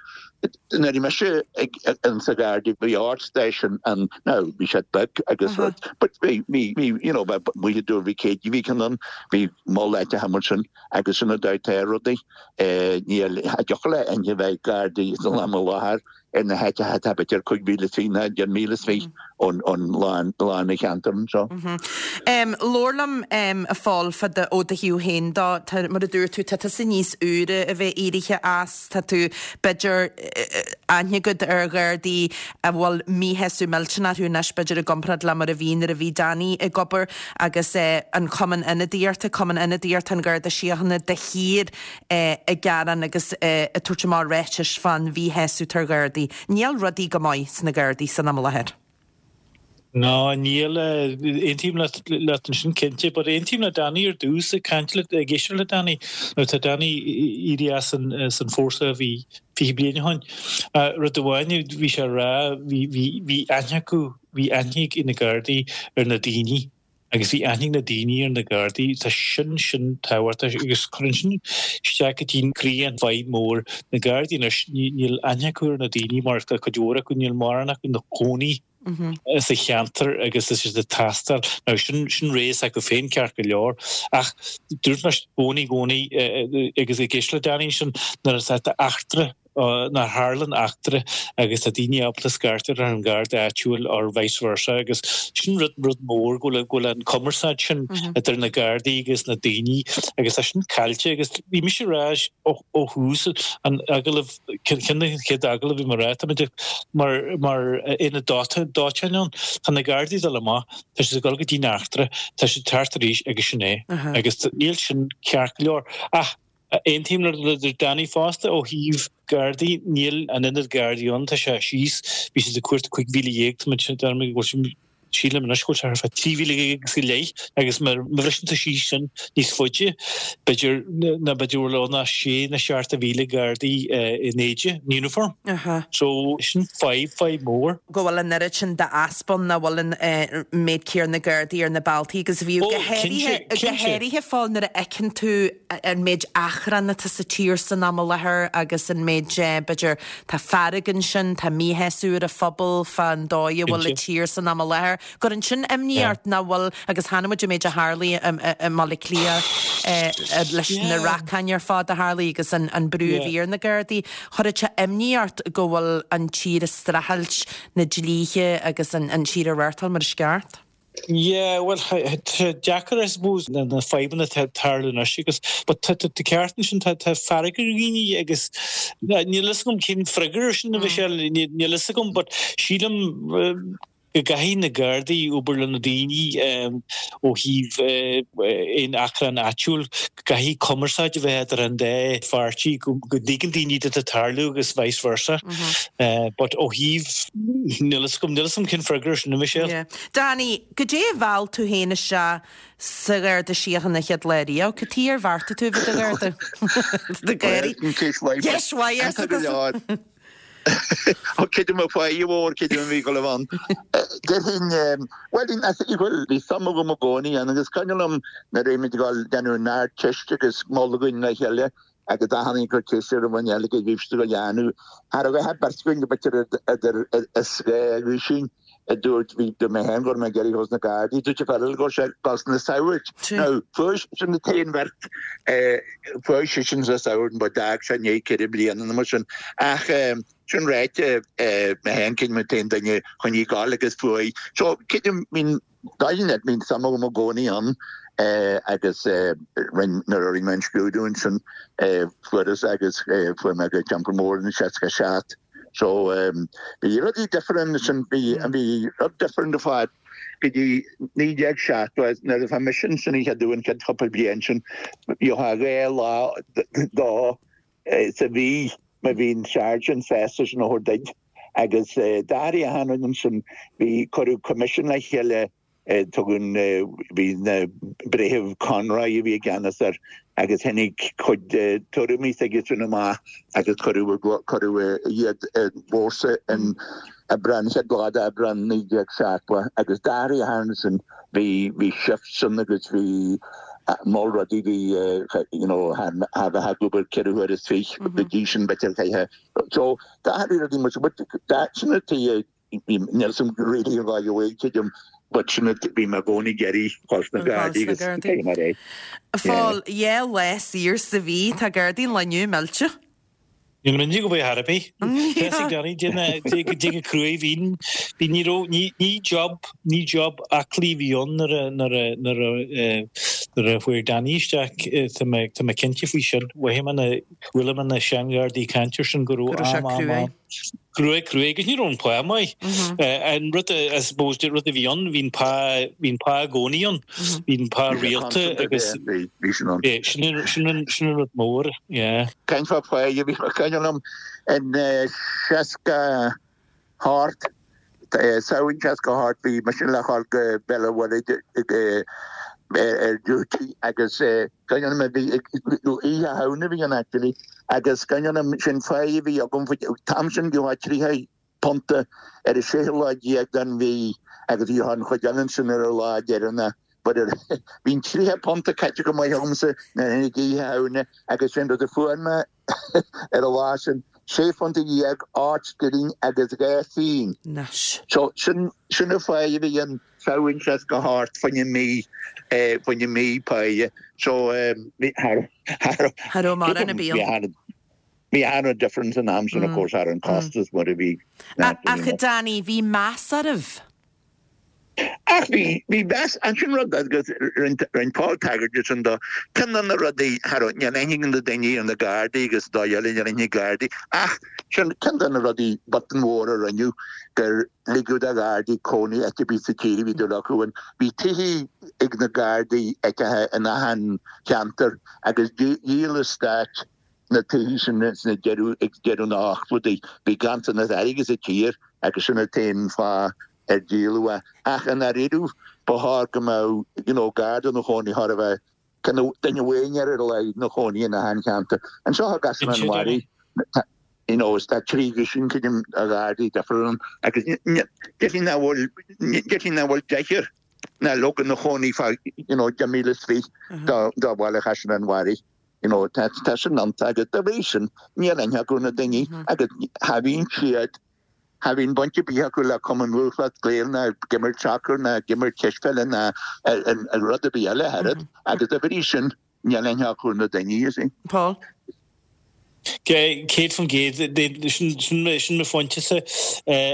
Nuair a bhí mise ag in sa Gharda bhí ocht stáisiún ann, now bhí siad beag agus rud, but bhí, bhí, bhí, you know, bheith amuigh i dTuar Mhic Éadaigh, bhí ceann ann, bhí moll áiteacha mar sin agus sin an dóigh atá rudaí. Níl, cha dtiocfadh le aithne a bheith ag Gardaí san am i láthair ar na háiteacha atá b'fhéidir 5,000 troigh nó 10,000 troigh ón lán an cheantair anseo. Labhair liom, a Phóil, fá do, ó do thaobh féin dó. Tá, mar a dúirt tú, tá tusa níos úire a bheith éirithe as, tá tú, b'fhéidir, aithne agat ar Ghardaí a bhfuil míshásamh millteanach orthu anois, b'fhéidir, i gcomparáid le mar a bhí nuair a bhí Danny ag obair agus an Cumann Ionadaíochta, Cumann Ionadaíochta an Gharda Síochána de shíor ag gearán agus ag tabhairt amach ráitis fán mhíshásamh atá ar Ghardaí. Níl rudaí go maith sna Gardaí san am i láthair. Ná níl. Aontaím leat ansin cinnte. But aontaím le Danny ar dtús, ag caint le, ag éisteacht le Danny. Now tá Danny éirithe as an, as an fórsa a bhí 20 bliain ó shin. Rud amháin a bhí sé a rá, bhí, bhí, bhí aithne acu, bhí aithne ag na Gardaí ar na daoine. Agus bhí aithne ag na daoine ar na Gardaí, tá sin, sin tábhachtach agus cuireann sin isteach go dtí croí an fadhb mór. Na Gardaí anois, níl aithne acu ar na daoine mar tá cuid mhór acu, níl mórán acu ina gcónaí sa cheantar agus tá siad ag taisteal. Now sin, sin rogha s'acu féin ceart go leor ach dúirt mé i gcónaí, i gcónaí agus ag éisteacht le Danny ansin nuair atá eachtra nuair a tharlann eachtra agus tá daoine ábalta scairteadh ar an Gharda áitiúil or vice versa agus sin rud rud mór go bhfuil go bhfuil an cumarsáid sin idir na Gardaí agus na daoine agus tá sin caillte agus bhí mise ag rá ó ó thús an agallamh ceann de na chéad agallamh bhí mé ag rá táimid mar mar aonad dóiteáin ann tá na Gardaí ag dul amach tá siad ag dul go dtí an eachtra tá siad ag teacht arís agus sin é agus níl sin ceart go leor ach Aontaím le Danny fosta ó thaobh Gardaí, níl an oiread Gardaí ann, tá sé síos, bhí siad ag cuartú 15,000, tá muid, deirim go bhfuil sé, sílim anois go bhfuil sé thart fá 13,000 agus go leith agus má bhriseann tú síos sin níos faide, b'fhéidir, ná b'fhéidir go bhfuil ann ach sé nó 7,000 Gardaí in éide, in uniform. So sin fadhb, fadhb mhór. go bhfuil an oiread sin d'easpa ann, nach bhfuil an méid céanna Gardaí ar na bealtaí agus bhíodh go háirithe, go háirithe Phóil nuair a fheiceann tú an méid achrann atá sa tír san am i láthair agus an méid b'fhéidir tá fearg ansin, tá míshásamh ar an phobal fán dóigh a bhfuil an tír san am i láthair. Cuireann sin imní ort nach bhfuil, agus chonaic muid an méid a tharlaigh i mBaile Átha Cliath leis na racáin ar fad a tharlaigh agus an brú a bhí ar na Gardaí. Chuirfeadh sé imní ort go bhfuil an tír ag streachailt na dlíthe agus an tír a reáchtáil mar is ceart? Yeah, bhuel, tá sé deacair, I suppose, na fadhbanna atá ag tarlú anois agus, but tá tú ceart ansin, tá fearg ar dhaoine agus níl a fhios agam cén freagra ar sin a Mhichelle, níl a fhios agam, but sílim go gcaithfidh na Gardaí obair le na daoine ó thaobh aon achrann áitiúil, go gcaithfidh cumarsáid a bheith idir an dá pháirtí, go dtuigeann daoine cad atá ag tarlú agus vice versa. But ó thaobh, níl a fhios agam, níl a fhios agam cén freagra ar sin, a Mhichelle. Yeah. Danny, goidé a mheall tú féin isteach sa Gharda Síochána an chéad lá riamh? Cad chuige ar bheartaigh tú a bheith i do Gharda? Do Ghardaí. Ceist mhaith. Ceist mhaith, arsa tusa. Ó creidim a fáidhe mhór, creidim a bhí go leibh ann. Déarfainn, bhuel, bhuel, bhí suim agam i gcónaí ann agus cuimhin liom nuair a bhí muid ag dul déanamh an Ardteist agus moladh againn le chéile agus achan duine ag cur ceist ar an dhuine eile cad a bhí siad ag dul a dhéanamh. Cha raibh a dhath beirt againn go b'fhéidir idir is gá agaibh sin. A dúirt, bhí, dúirt mé féin go raibh mé ag iarraidh dhul sna Gardaí, dúirt an fear eile go raibh sé ag dul sna Saghaird. Now, fuair, sin an t-aon bheirt, fuair seisean sna Saghaird but d'fhág sé i ndiaidh ceithre bliana nó mar sin. Ach sin ráite, mé féin creidim an t-aon duine chun í gabháil agus fuair. So, creidim, bíonn, dóigh leat, bíonn suim agam i gcónaí ann agus rinn, nuair a rinne mé an scrúdú ansin, fuaireas agus fuair mé go Teampall Mór in 67. So bhí rudaí difriúil ansin, bhí bhí rud difriúil ar fad go dtí 1970 nuair a bhí mise ansin an chéad uair an chéad chúpla bliain sin, gheofá dhá lá dó sa mhí má bhí an sergeant sásta sin a thabhairt duit agus d'athraigh achan rud ansin, bhí cuireadh coimisiún le chéile Tugann, bhí na Breitheamh Conroy a bhí i gceannas air agus tháinig cuid de tuairimí s'aige sin amach agus cuireadh, cuireadh iad i bhfórsa in Aibreán, chéad lá d'Aibreán 1970 agus d'athraigh achan rud ansin, bhí, bhí shifts ann agus bhí moll rudaí, bhí you know cha bheifeá ag obair ceithre huaire is fiche go dtí sin b'fhéidir chaithfeá, so d'athraigh rudaí mar sin but sin an tuige Níl 'fhios a'm really an dóigh a bhfuil, tuigim, but sin it, bhí mé i gcónaí ag iarraidh dhul sna Gardaí agus cé mar é. Phól, dhá lá saor sa mhí, tá Gardaí an lae inniu millte. Níl mé go bhfuil thar ar bith. Tá a fhios ag Danny, dé go cruaidh, bhí, bhí, ní raibh, ní, ní job, ní job aclaí a bhí ann nuair a, nuair a, nuair a, nuair a fuair Danny isteach, tá mé, tá mé cinnte faoi sin. Mhothaigh mé na, chuala mé na seanghardaí ag caint air sin go raibh am, am, am. Cruaidh, cruaidh, agus ní raibh an pá maith. An rud, I suppose, rud a bhí ann, bhí an pá, bhí an pá i gcónaí ann. Bhí an pá rialta agus bhí sin ann. Sin an, sin an, sin an rud mór, yeah. Caint fá phá, bhí cuimhin liom in 68, Samhain 68, bhí mise le dhul go Béal an Mhuirthead ar duty agus cuimhin liom bhí Oíche Shamhna a bhí ann actually agus cuimhin liom sin pá a bhí agam an t-am sin gheofá £30 ar an séú lá déag den mhí agus bhí an chuid eile ansin ar an lá deireanach but bhí an £30 caite go maith agamsa nuair a tháinig Oíche Shamhna agus sin rud a fuair mé ar an lá sin, sé phunta dhéag, 8 scilling agus 2 phingin. Anois. So, sin, sin an pháigh a bhí ann Samhain 68 fá choinne mí, fá choinne mí páighe. So, bhí, cha raibh, cha raibh, Cha raibh mórán ar bith ann. bhí an-difference an am sin, of course, thar an costas mar a bhí. Ach, a Danny, bhí meas oraibh. Ach bhí, bhí meas, ansin rud agus rinne Paul tagairt de sin do, ceann de na rudaí, cha raibh, níl aithne ag na daoine ar na Gardaí agus dóigh eile níl aithne ag Gardaí, ach sin ceann de na rudaí botún mhór a rinneadh gur ligeadh do Ghardaí cónaí áit ar bith sa tír a bhí dúil acu ann. Bhí tithe ag na Gardaí áiteacha in achan cheantar agus dhíol an stát na tithe sin sna deireadh, ag deireadh na n-ochtóidí. Bhí ganntanas airgid sa tír agus sin an t-aon fáth ar díoladh é. Ach i ndáiríre, ba chóir go mbeadh, you know, Garda ina chónaí, chóir a bheith, kind of, duine amháin ar a laghad ina chónaí in achan cheantar. Anseo i gCaisleán an Bharraigh, you know, is tá trí dhuisín, creidim, de Ghardaí difriúil ann agus déarfainn nach bhfuil, déarfainn nach bhfuil deichniúr ná leoga ina chónaí fá, you know, 10,000 is fiche do bhaile Chaisleán an Bharraigh. You know, tá, tá sin iontach agus dá bhrí sin, níl aithne acu ar na daoine agus cha bhíonn siad, cha bhíonn baint ar bith acu le Cumann Lúthchleas Gael ná ag imirt sacair ná ag imirt cispheile ná rud ar bith eile ach oiread agus dá bhrí sin, níl aithne acu ar na daoine, you see. Paul. 100%, sin mo phointe-sa.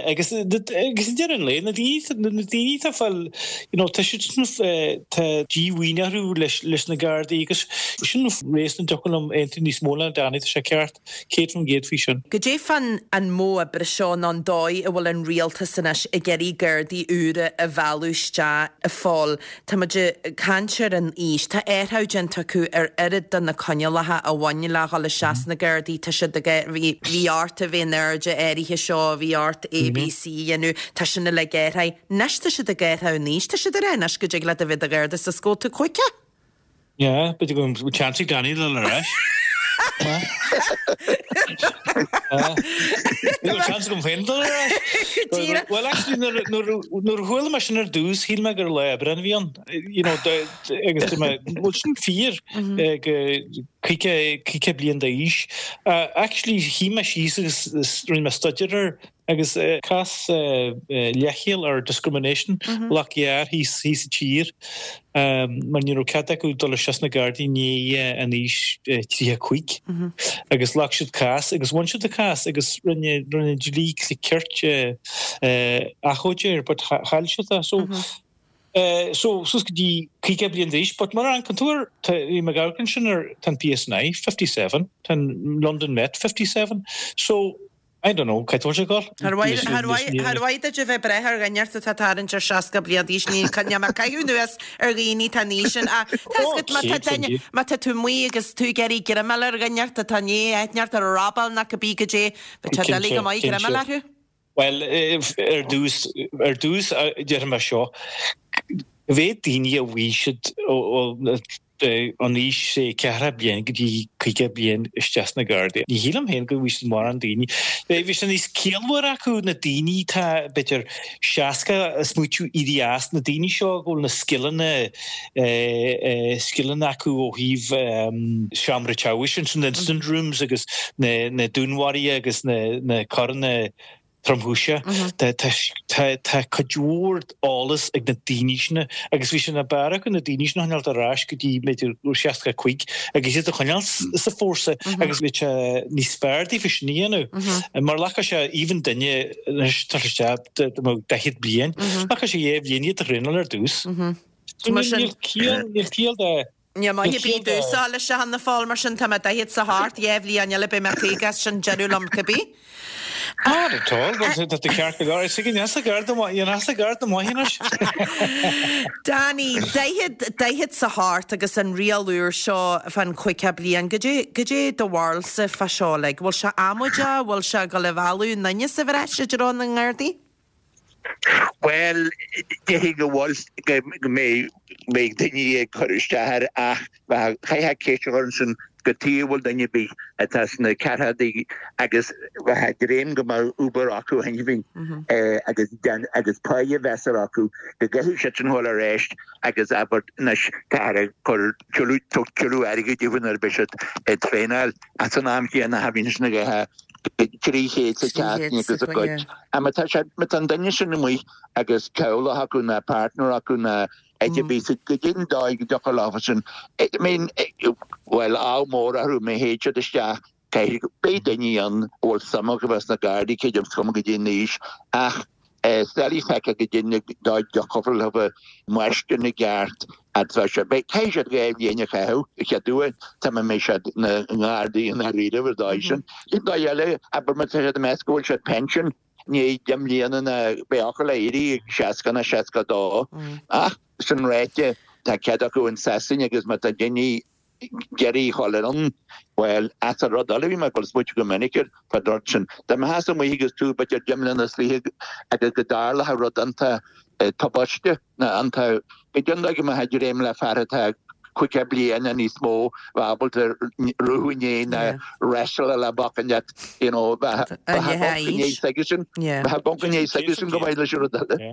Agus i ndeireadh an lae, na daoine atá ag fáil, you know, tá siad sin, tá díomhaoin orthu leis na Gardaí agus sin réasún a dtiocfadh liom aontú níos mó le Danny, tá sé ceart. 100% faoi sin. Goidé fán an modh oibre seo nó an dóigh a bhfuil an rialtas anois ag iarraidh Gardaí úra a mhealladh isteach, a Phóil? Tá muid ag caint ar an aois. Tá athrú déanta acu ar oiread de na coinníollacha a bhain le dhul isteach sna Gardaí. Tá siad ag, bhí, bhí ort a bheith in airde áirithe seo, bhí ort A, B, C a dhéanamh. Tá sin uilig athraithe. Anois tá siad ag athrú an aois. Tá siad ag rá anois go dtig leat a bheith i do Gharda is go bhfuil tú 50. Yeah, b'fhéidir go bhfuil chance ag Danny dul ar ais. Níl chance agam féin dul ar ais. Well, actually, nuair a chuala mé sin ar dtús, shíl mé gur lá oibre a bhí ann. You know, agus dúirt mé, bhfuil sin fíor go 50 bliain d'aois. Actually, shuigh mé síos agus rinne mé staidéar air. Agus cás leithcheal or discrimination ghlac gearr thíos thíos sa tír mar ní raibh cead acu dul isteach sna Gardaí i ndiaidh an aois 35 agus ghlac siad cás agus bhain siad an cás agus rinne rinne dlí cirt achomharc air but chaill siad é so So, suas go dtí 50 bliain d'aois, but mar an tú tá bhí mé ag amharc ansin ar tá an PSNI 57, tá an London Met 57, so I don't know, cá bhfuil sé ag dul? Char mhaith, char mhaith, char mhaith duit a bheith ag breith ar dhuine ort atá ag tarraingt ar 60 bliain d'aois, ní, níl mé ag caitheamh anuas ar dhaoine atá an aois sin, ach tá fhios agat má tá duine, má tá tú amuigh agus tú ag iarraidh greimeáil ar dhuine ort atá i ndiaidh aithne ort ar robáil nó cibé goidé, bheadh sé doiligh go maith greimeáil orthu. Bhuel, ar dtús, ar dtús déarfaidh mé seo, cá mhéad daoine a bhfaighidh siad ón aois sé ceathracha bliain go dtí 50 bliain isteach sna Gardaí. Ní shílim féin go bhfaighidh siad mórán daoine. Bheadh sé níos ciallmhaire acu na daoine atá b'fhéidir 60 ag smaoitiú éirí as, na daoine seo go bhfuil na scileanna, scileanna acu ó thaobh seomra teagmhais ansin, na incident rooms agus na dúnmharuithe agus na coireanna tromchúise. Tá cuid mhór eolas ag na daoine sin agus bhí sé ní b'fhearr acu na daoine sin a choinneáilt ar ais go dtí b'fhéidir 65 agus iad a choinneáil sa fórsa agus bhí sé níos fearr daofa sin a dhéanamh. Mar ghlacfadh sé even duine anois tá isteach 40 bliain, ghlacfadh sé dhá bhliain iad a thraenáil ar dtús. Mar sin. Níl ciall de. Níl maith ar bith domhsa leis a Fhianna Fáil, mar sin tá mé daichead 's a hocht, dhá bhliain eile beidh mé 50 is sin deireadh liom cibé. Not at all, tá tú ceart go leor. Is ag an easa gar do mhaith, an easa gar do mhaith anois. Danny, daichead, daichead 's a hocht agus an riail úr seo fán chaoga bliain, goidé, goidé do bharúilsa fá seo like? Bhfuil sé amaideach, bhfuil sé ag dul a mhealladh na ndaoine sa bhreis i dtreo na nGardaí? Bhuel, déarfainn go bhfuil, go mbeidh daoine ag cur isteach air ach chaithfeá ceist a chur ansin cad chuige a bhfuil duine ar bith atá sna ceathrachaidí agus bheadh ag dréim go mbeadh obair acu cheana féin agus agus páighe mheasartha acu go gcaithfidh siad sin dhul ar ais agus abair anois táthar ag cur tuilleadh tuilleadh airgid daofa nuair a bheidh siad ag traenáil ach san am chéanna cha bhíonn sin ag ithe 300 sa tseachtain agus a gcuid. Má tá sé, má tá an duine sin amuigh agus teaghlach acu ná partner acu ná áit ar bith, goidé an dóigh go dtiocfadh leofa sin, I mean, bhuel, ádh mór orthu má théid siad isteach, caithfidh, beidh daoine ann a bhfuil suim acu bheith sna Gardaí, cé is cuma goidé an aois, ach is doiligh feiceáil goidé an dóigh a dtiocfadh leofa máistir na gceart atá sé. Beidh, caithfidh siad 2 bhliain a chaitheamh, a chéad uair, tá mé mbeidh siad ina nGardaí i ndáiríribh ar dóigh sin. An dóigh eile, abair má tá siad ag meas go bhfuil siad pension i ndiaidh 10 mbliana ná beidh acu le éirí ag 60 ná 62. Ach sin ráite, tá cead acu in Sasain agus má tá daoine ag iarraidh a dhul ann, bhuel, as an rud eile, bhí mé ag dul smaoitiú go minic air fán rud sin. Dá mbeifeása amuigh agus tú b'fhéidir 10 mbliana is fiche agus go dtarlódh rud iontach tubaiste ná iontach, goidé an dóigh go mbeifeá ag dréim le fear atá 50 bliain nó níos mó bheith ábalta ruathadh i ndiaidh ná wrestle le boc leat, you know, bheith ag amharc i ndiaidh s'aigesean, bheith ag amharc i ndiaidh s'aigesean go maith leis an rud eile.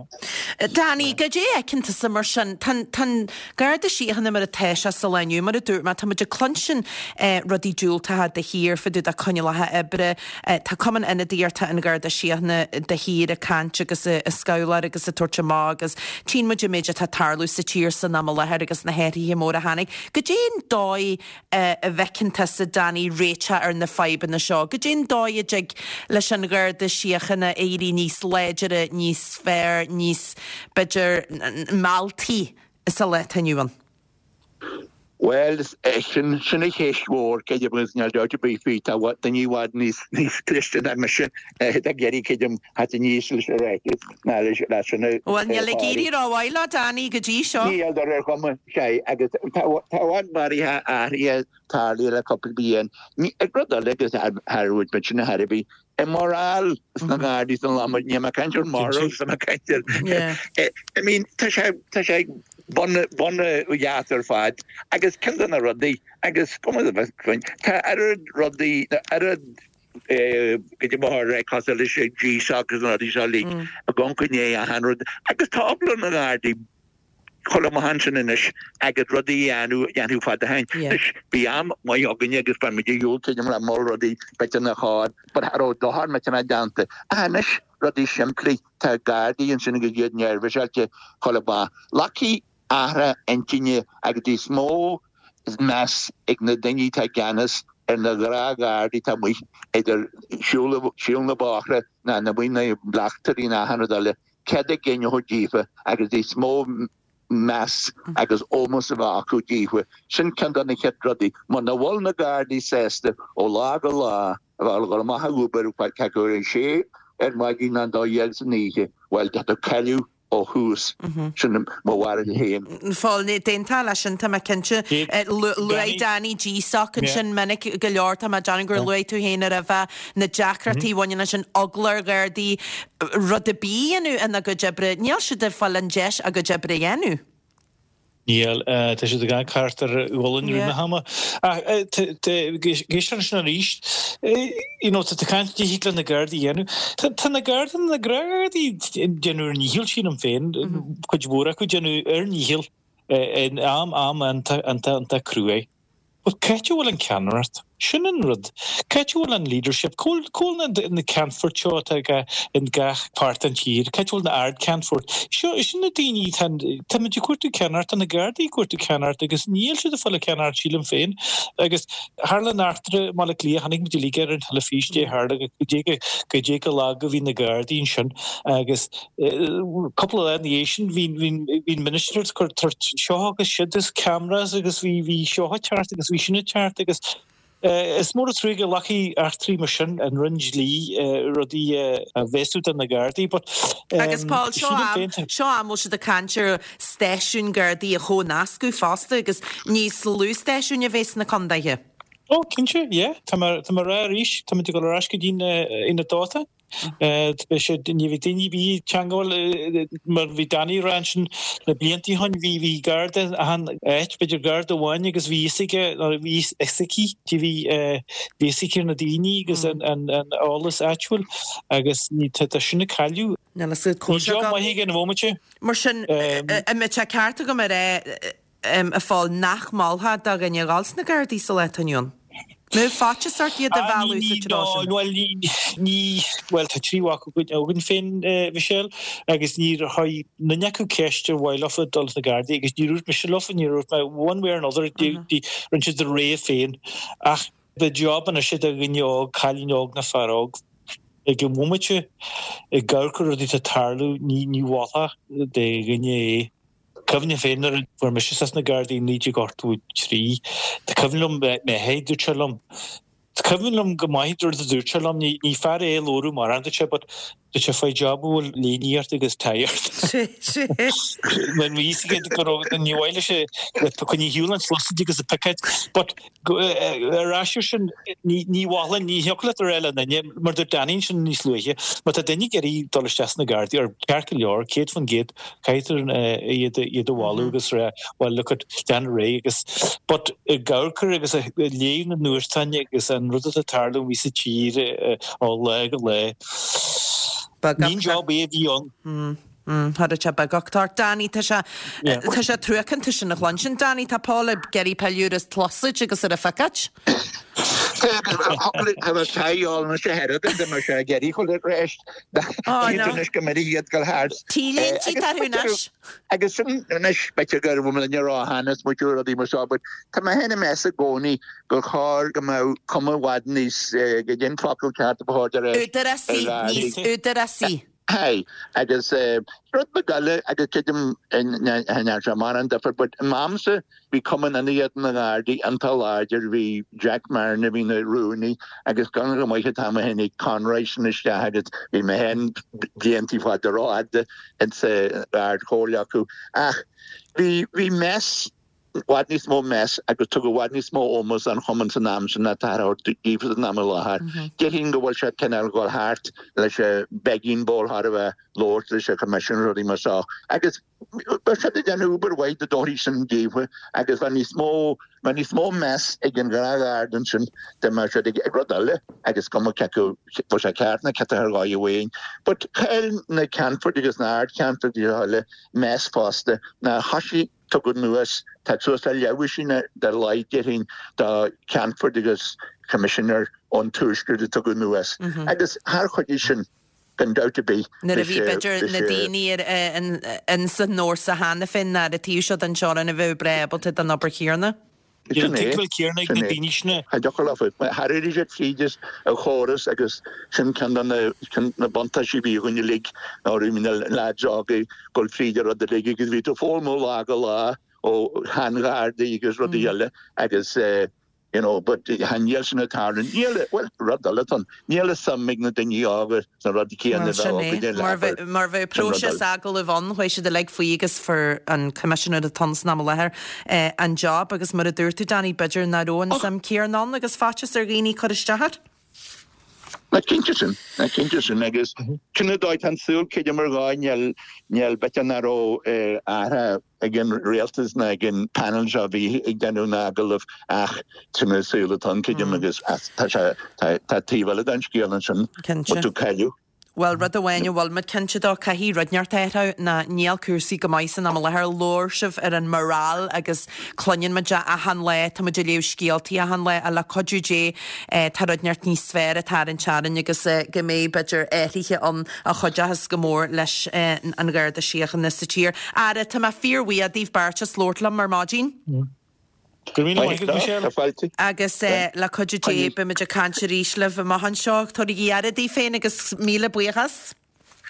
Danny, goidé a fheiceann tusa mar sin? Tá an Garda Síochána mar atá sé sa lá inniu, mar a dúirt mé, tá muid ag cluinstin rudaí diúltacha de shíor fá dtaobh de coinníollacha oibre. Tá Cumann Ionadaíochta an Gharda Síochána de shíor ag caint agus ag scabhláir agus ag tabhairt amach agus tchíonn muid an méid atá ag tarlú sa tír san am i láthair agus na hathruithe móra a tháinig. Goidé an dóigh a bhfeiceann tusa, Danny, réiteach ar na fadhbanna seo? Goidé an dóigh a dtig leis an Gharda Síochána éirí níos láidire, níos fearr, níos, b'fhéidir, mealltaí sa lá atá inniu ann? Bhuel, sin, sin an cheist mhór, creidim, agus níl dabht ar bith faoi, tá daoine i bhfad níos, níos cliste ná mise ag iarraidh, creidim, theacht aníos leis an ráiteas ná leis, leis sin a Bhuel, níl ag éirí rómhaith leo, Danny, go dtí seo. Níl, ar ar chuma, sea, agus tá, tá i bhfad maraithe athraithe tarlaithe le cúpla bliain. Ní, rud eile agus thar, thar rud sin a thairbhí, an morale sna Gardaí san lá, níl mé ag caint ar morals, tá mé ag caint ar, I mean, tá sé, tá sé bun, bun dheas ar fad agus ceann de na rudaí agus cuma de bheith faoin, tá oiread rudaí, oiread go dtí mo thóir cosúil leis an GSOC agus na rudaí seo uilig ag amharc i ndiaidh achan rud agus tá eagla ar na Gardaí. Chuile maith ansin anois agus rudaí a dhéanamh a dhéanfadh fada ó shin. Anois, bhí am maith againne agus bhain muid a shiúl tríd le mol rudaí b'fhéidir nach chóir, but cha raibh dochar millteanach déanta. Ach anois, rudaí simplí, tá Gardaí ansin agus iad neirbhíseáilte chuile mhaith. Glacfaidh athrú intinne agus níos mó meas ag na daoine atá i gceannas ar na gnáth-Ghardaí atá amuigh idir siúl na bóithre ná na amuigh na bleachtairí ná achan rud eile. Céard a dhéanfadh díofa agus níos mó meas agus ómós a bheith acu díofa. Sin ceann de na chéad rudaí. Muna bhfuil na Gardaí sásta ó lá go lá a bheith ag dul amach ag obair cé acu ar a sé ar maidin nó an 12 san oíche, bhuel, tá tú cailleadh ó thús. Sin mo bharúil féin. Phóil, D'aontófá leis sin, tá mé cinnte. Luaigh Danny GSOC ansin minic go leor, tá mé ag déanamh gur luaigh tú féin roimhe, na deacrachtaí a bhaineann leis an eagla ar Ghardaí rud ar bith a dhéanamh ina gcuid oibre. Níl siad ag fáil an deis a gcuid oibre a dhéanamh. Níl. Tá siad ag amharc thart ar ghualainn i rith na hama. Ach éist ansin arís, you know, tá tú ag caint cad thig le na Gardaí a dhéanamh. Tá na Gardaí, na Gardaí ag déanamh ar ndícheall, sílim féin, cuid mhór acu ag déanamh ar ndícheall in am am iontach iontach iontach cruaidh. But c'áit a bhfuil an ceannaireacht? Sin an rud. C'áit a bhfuil an leadership? Cá bhfuil, cá bhfuil na ceannfoirt seo atá in gach páirt den tír? C'áit a bhfuil na ardcheannfoirt? Seo, sin na daoine atá, táimid ag cuartú ceannaireacht, tá na Gardaí ag cuartú ceannaireacht agus níl siad ag fáil an ceannaireacht sílim féin. Agus tharla an eachtra i mBaile Átha Cliath, chonaic muid uilig ar an teilifís, dé tharla, go dté go, go dté go lag a bhí na Gardaí ansin agus Cúpla lá ina dhiaidh sin bhí an minister ag cur seo agus siúd agus cameras agus bhí seo ag teacht agus bhí sin ag teacht agus is mór an trua go nglacfaidh eachtraí mar sin an Roinn Dlí rudaí a bhéasú do na Gardaí but Agus Paul, seo am, seo am bhfuil siad ag caint ar stáisiúin Gardaí a chomhnascadh fosta agus níos lú stáisiúin a bheith sna condaetha. Ó, cinnte, yeah. Tá mé ag rá arís, táimid ag dul ar ais go dtí an dáta. Beidh sé, ní bheidh daoine ar bith teangmháil mar bhí Danny ag rá ansin na blianta ó shin, bhí bhí garda achan áit, b'fhéidir garda amháin agus bhí fhios aige nó bhí fhios aici, bhí bhí fhios aici ar na daoine agus an an an eolas áitiúil agus ní tá tá sin ag cailleadh. Níl fhios agat Ní job maith ag an bhomaite. Mar sin, an mbeadh sé ceart agam a rá a Phóil, nach molfá do dhuine a dhul sna Gardaí sa lá atá inniu ann? Mbeadh faitíos ort iad a mhealladh sa treo sin? Bhuel, ní, bhuel, tá triúr mhac againn féin, Michelle, agus níor chuir duine acu ceist ar mhaith leofa dul sna Gardaí agus níor dhúirt mise leofa, níor dhúirt mé one way or another, rinne siad a rogha féin. Ach ba job anois é do dhuine óg, cailín óg nó fear óg, ag an bhomaite, ag amharc ar rudaí atá ag tarlú, ní mholfá do dhuine é. Cuimhním féin nuair a fuair mise isteach sna Gardaí i 1983, tá cuimhin liom mé féin, dúirt sé liom, tá cuimhin liom go maith rud a dúirt sé liom, ní fear é a labhradh mórán, dúirt sé, but dúirt sé faigh job a bhfuil léine ort agus tie ort. Mar bhí fhios aige go raibh, ní mhaith leis é, coinnigh ar shiúl an tsliosaid agus an picéid, but Ar ais ar sin, ní mholfainn, ní thiocfadh leat a rá le duine, mar dúirt Danny ansin níos luaithe, má tá duine ag iarraidh dul isteach sna Gardaí, ar ceart go leor, 100%, caithfidh iad a mholadh agus rá, well look at, déan ar aghaidh agus, but ag amharc ar agus ag léamh na nuachtáin agus an rud atá ag tarlú amuigh sa tír ó lá go lá, ní an job é a bhí ann. Chuirfeadh sé beagucht ort. Danny, tá sé, tá sé truacánta sin a chluinstin. Danny, tá Paul ag iarraidh pilleadh ar an tsluasaid agus ar an phicéid. Tá bheith taighdeáil na sé hearad de mar sé ag iarraidh chun ar éist. Anois go mbeidh iad go thart. T-léinte tá thú anois. Agus sin anois b'fhéidir go raibh muid ró-shean is muid rudaí mar seo, but tá mé féin ag meas i gcónaí gur chóir go mbeadh cuma i bhfad níos go dtí an focal ceart a ba chóir de réir. Údarásaí, níos údarásaí. Aye, agus rud beag eile, agus creidim nach ndearna sé mórán difear, but in m'amsa bhí Cumann Ionadaíochta na nGardaí iontach láidir, bhí Jack Marron a bhí ina rúnaí agus go go maith atá mé féin ag Conroy sin isteach agus bhí mé féin blianta fada rófhada insa Ard Chomhairle acu ach bhí, bhí meas. bhfad níos mó meas agus tugadh i bhfad níos mó ómós don chumann san am sin ná táthar a thabhairt daofa san am i láthair. Déarfainn go bhfuil sé cineál dhul thart leis an begging bowl thar a bheith labhairt leis an Choimisiún rudaí mar seo agus bheadh siad ag déanamh obair mhaith dá dtabharfaí sin daofa agus bheadh níos mó bheadh níos mó meas ag an ghnáthgharda ansin dá mbeadh siad ag rud eile agus cuma cé acu bhfuil sé ceart nó ciotaithe ar dhóigh amháin. But chaill na Ceannfoirt agus na Ard-Cheannfoirt agus eile meas fosta ná thoisigh tugadh anuas, tá suas le leathdhosaen ar a laghad déarfainn de Cheannfoirt agus Coimisinéir ón Tuaisceart a tugadh anuas agus char chuidigh sin gan dabht ar bith Nuair a bhí b'fhéidir na daoine ins an fhórsa cheana féin ar an taobh seo den teorainn a bheadh breá ábalta don obair chéanna. Sin é. Tuigbheáil céanna ag na daoine sin. Cha dtiocfadh leofa. Char éirigh siad tríd an chóras agus sin ceann de na buntáistí a bhí againn uilig ná raibh na leaids óga ag dul fríd an rud uilig agus bhí tú ag foghlaim ó lá go lá ó shean-ghardaí agus rudaí eile agus you know but níl sin ag tarlú. Níl, bhuel, rud eile atá ann, níl a suim ag na daoine óga sna rudaí céanna a bheadh againne Mar bheadh mar bheadh próiseas agallaimh ann, chuaigh siad uilig faoi agus fuair an coimisinéir atá ann san am i láthair an job agus mar a dúirt tú Danny, b'fhéidir nach raibh an suim céanna ann agus faitíos ar dhaoine cur isteach air. Ná cinnte sin, ná cinnte sin agus sin an dóigh tá an saol creidim ar dhóigh níl níl b'fhéidir nach raibh athrá ag an rialtas ná ag an panel seo a bhí ag déanamh na n-agallamh ach sin an saol atá ann creidim agus tá sé tá taobh eile den scéal ansin bhfuil tú cailleadh. Bhuel, rud amháin a bhfuil muid cinnte dó, caithfidh rud inteacht athrú ná níl cúrsaí go maith san am i láthair. Labhair sibh ar an morale agus cluineann muid é achan lá, tá muid ag léamh scéaltaí achan lá ach le cuidiú Dé tá rud inteacht níos fearr ag tarraingt orainn agus go mbeidh b'fhéidir athruithe ann a chuideochas go mór leis an Gharda Síochána sa tír. Ara, tá mé fíorbhuíoch daoibh beirt as labhairt liom ar maidin. Go raibh míle maith agat, Michelle. Agus le cuidiú Dé, beimid ag caint arís libh amach anseo. Tabhairigí aire daoibh féin agus míle buíochas.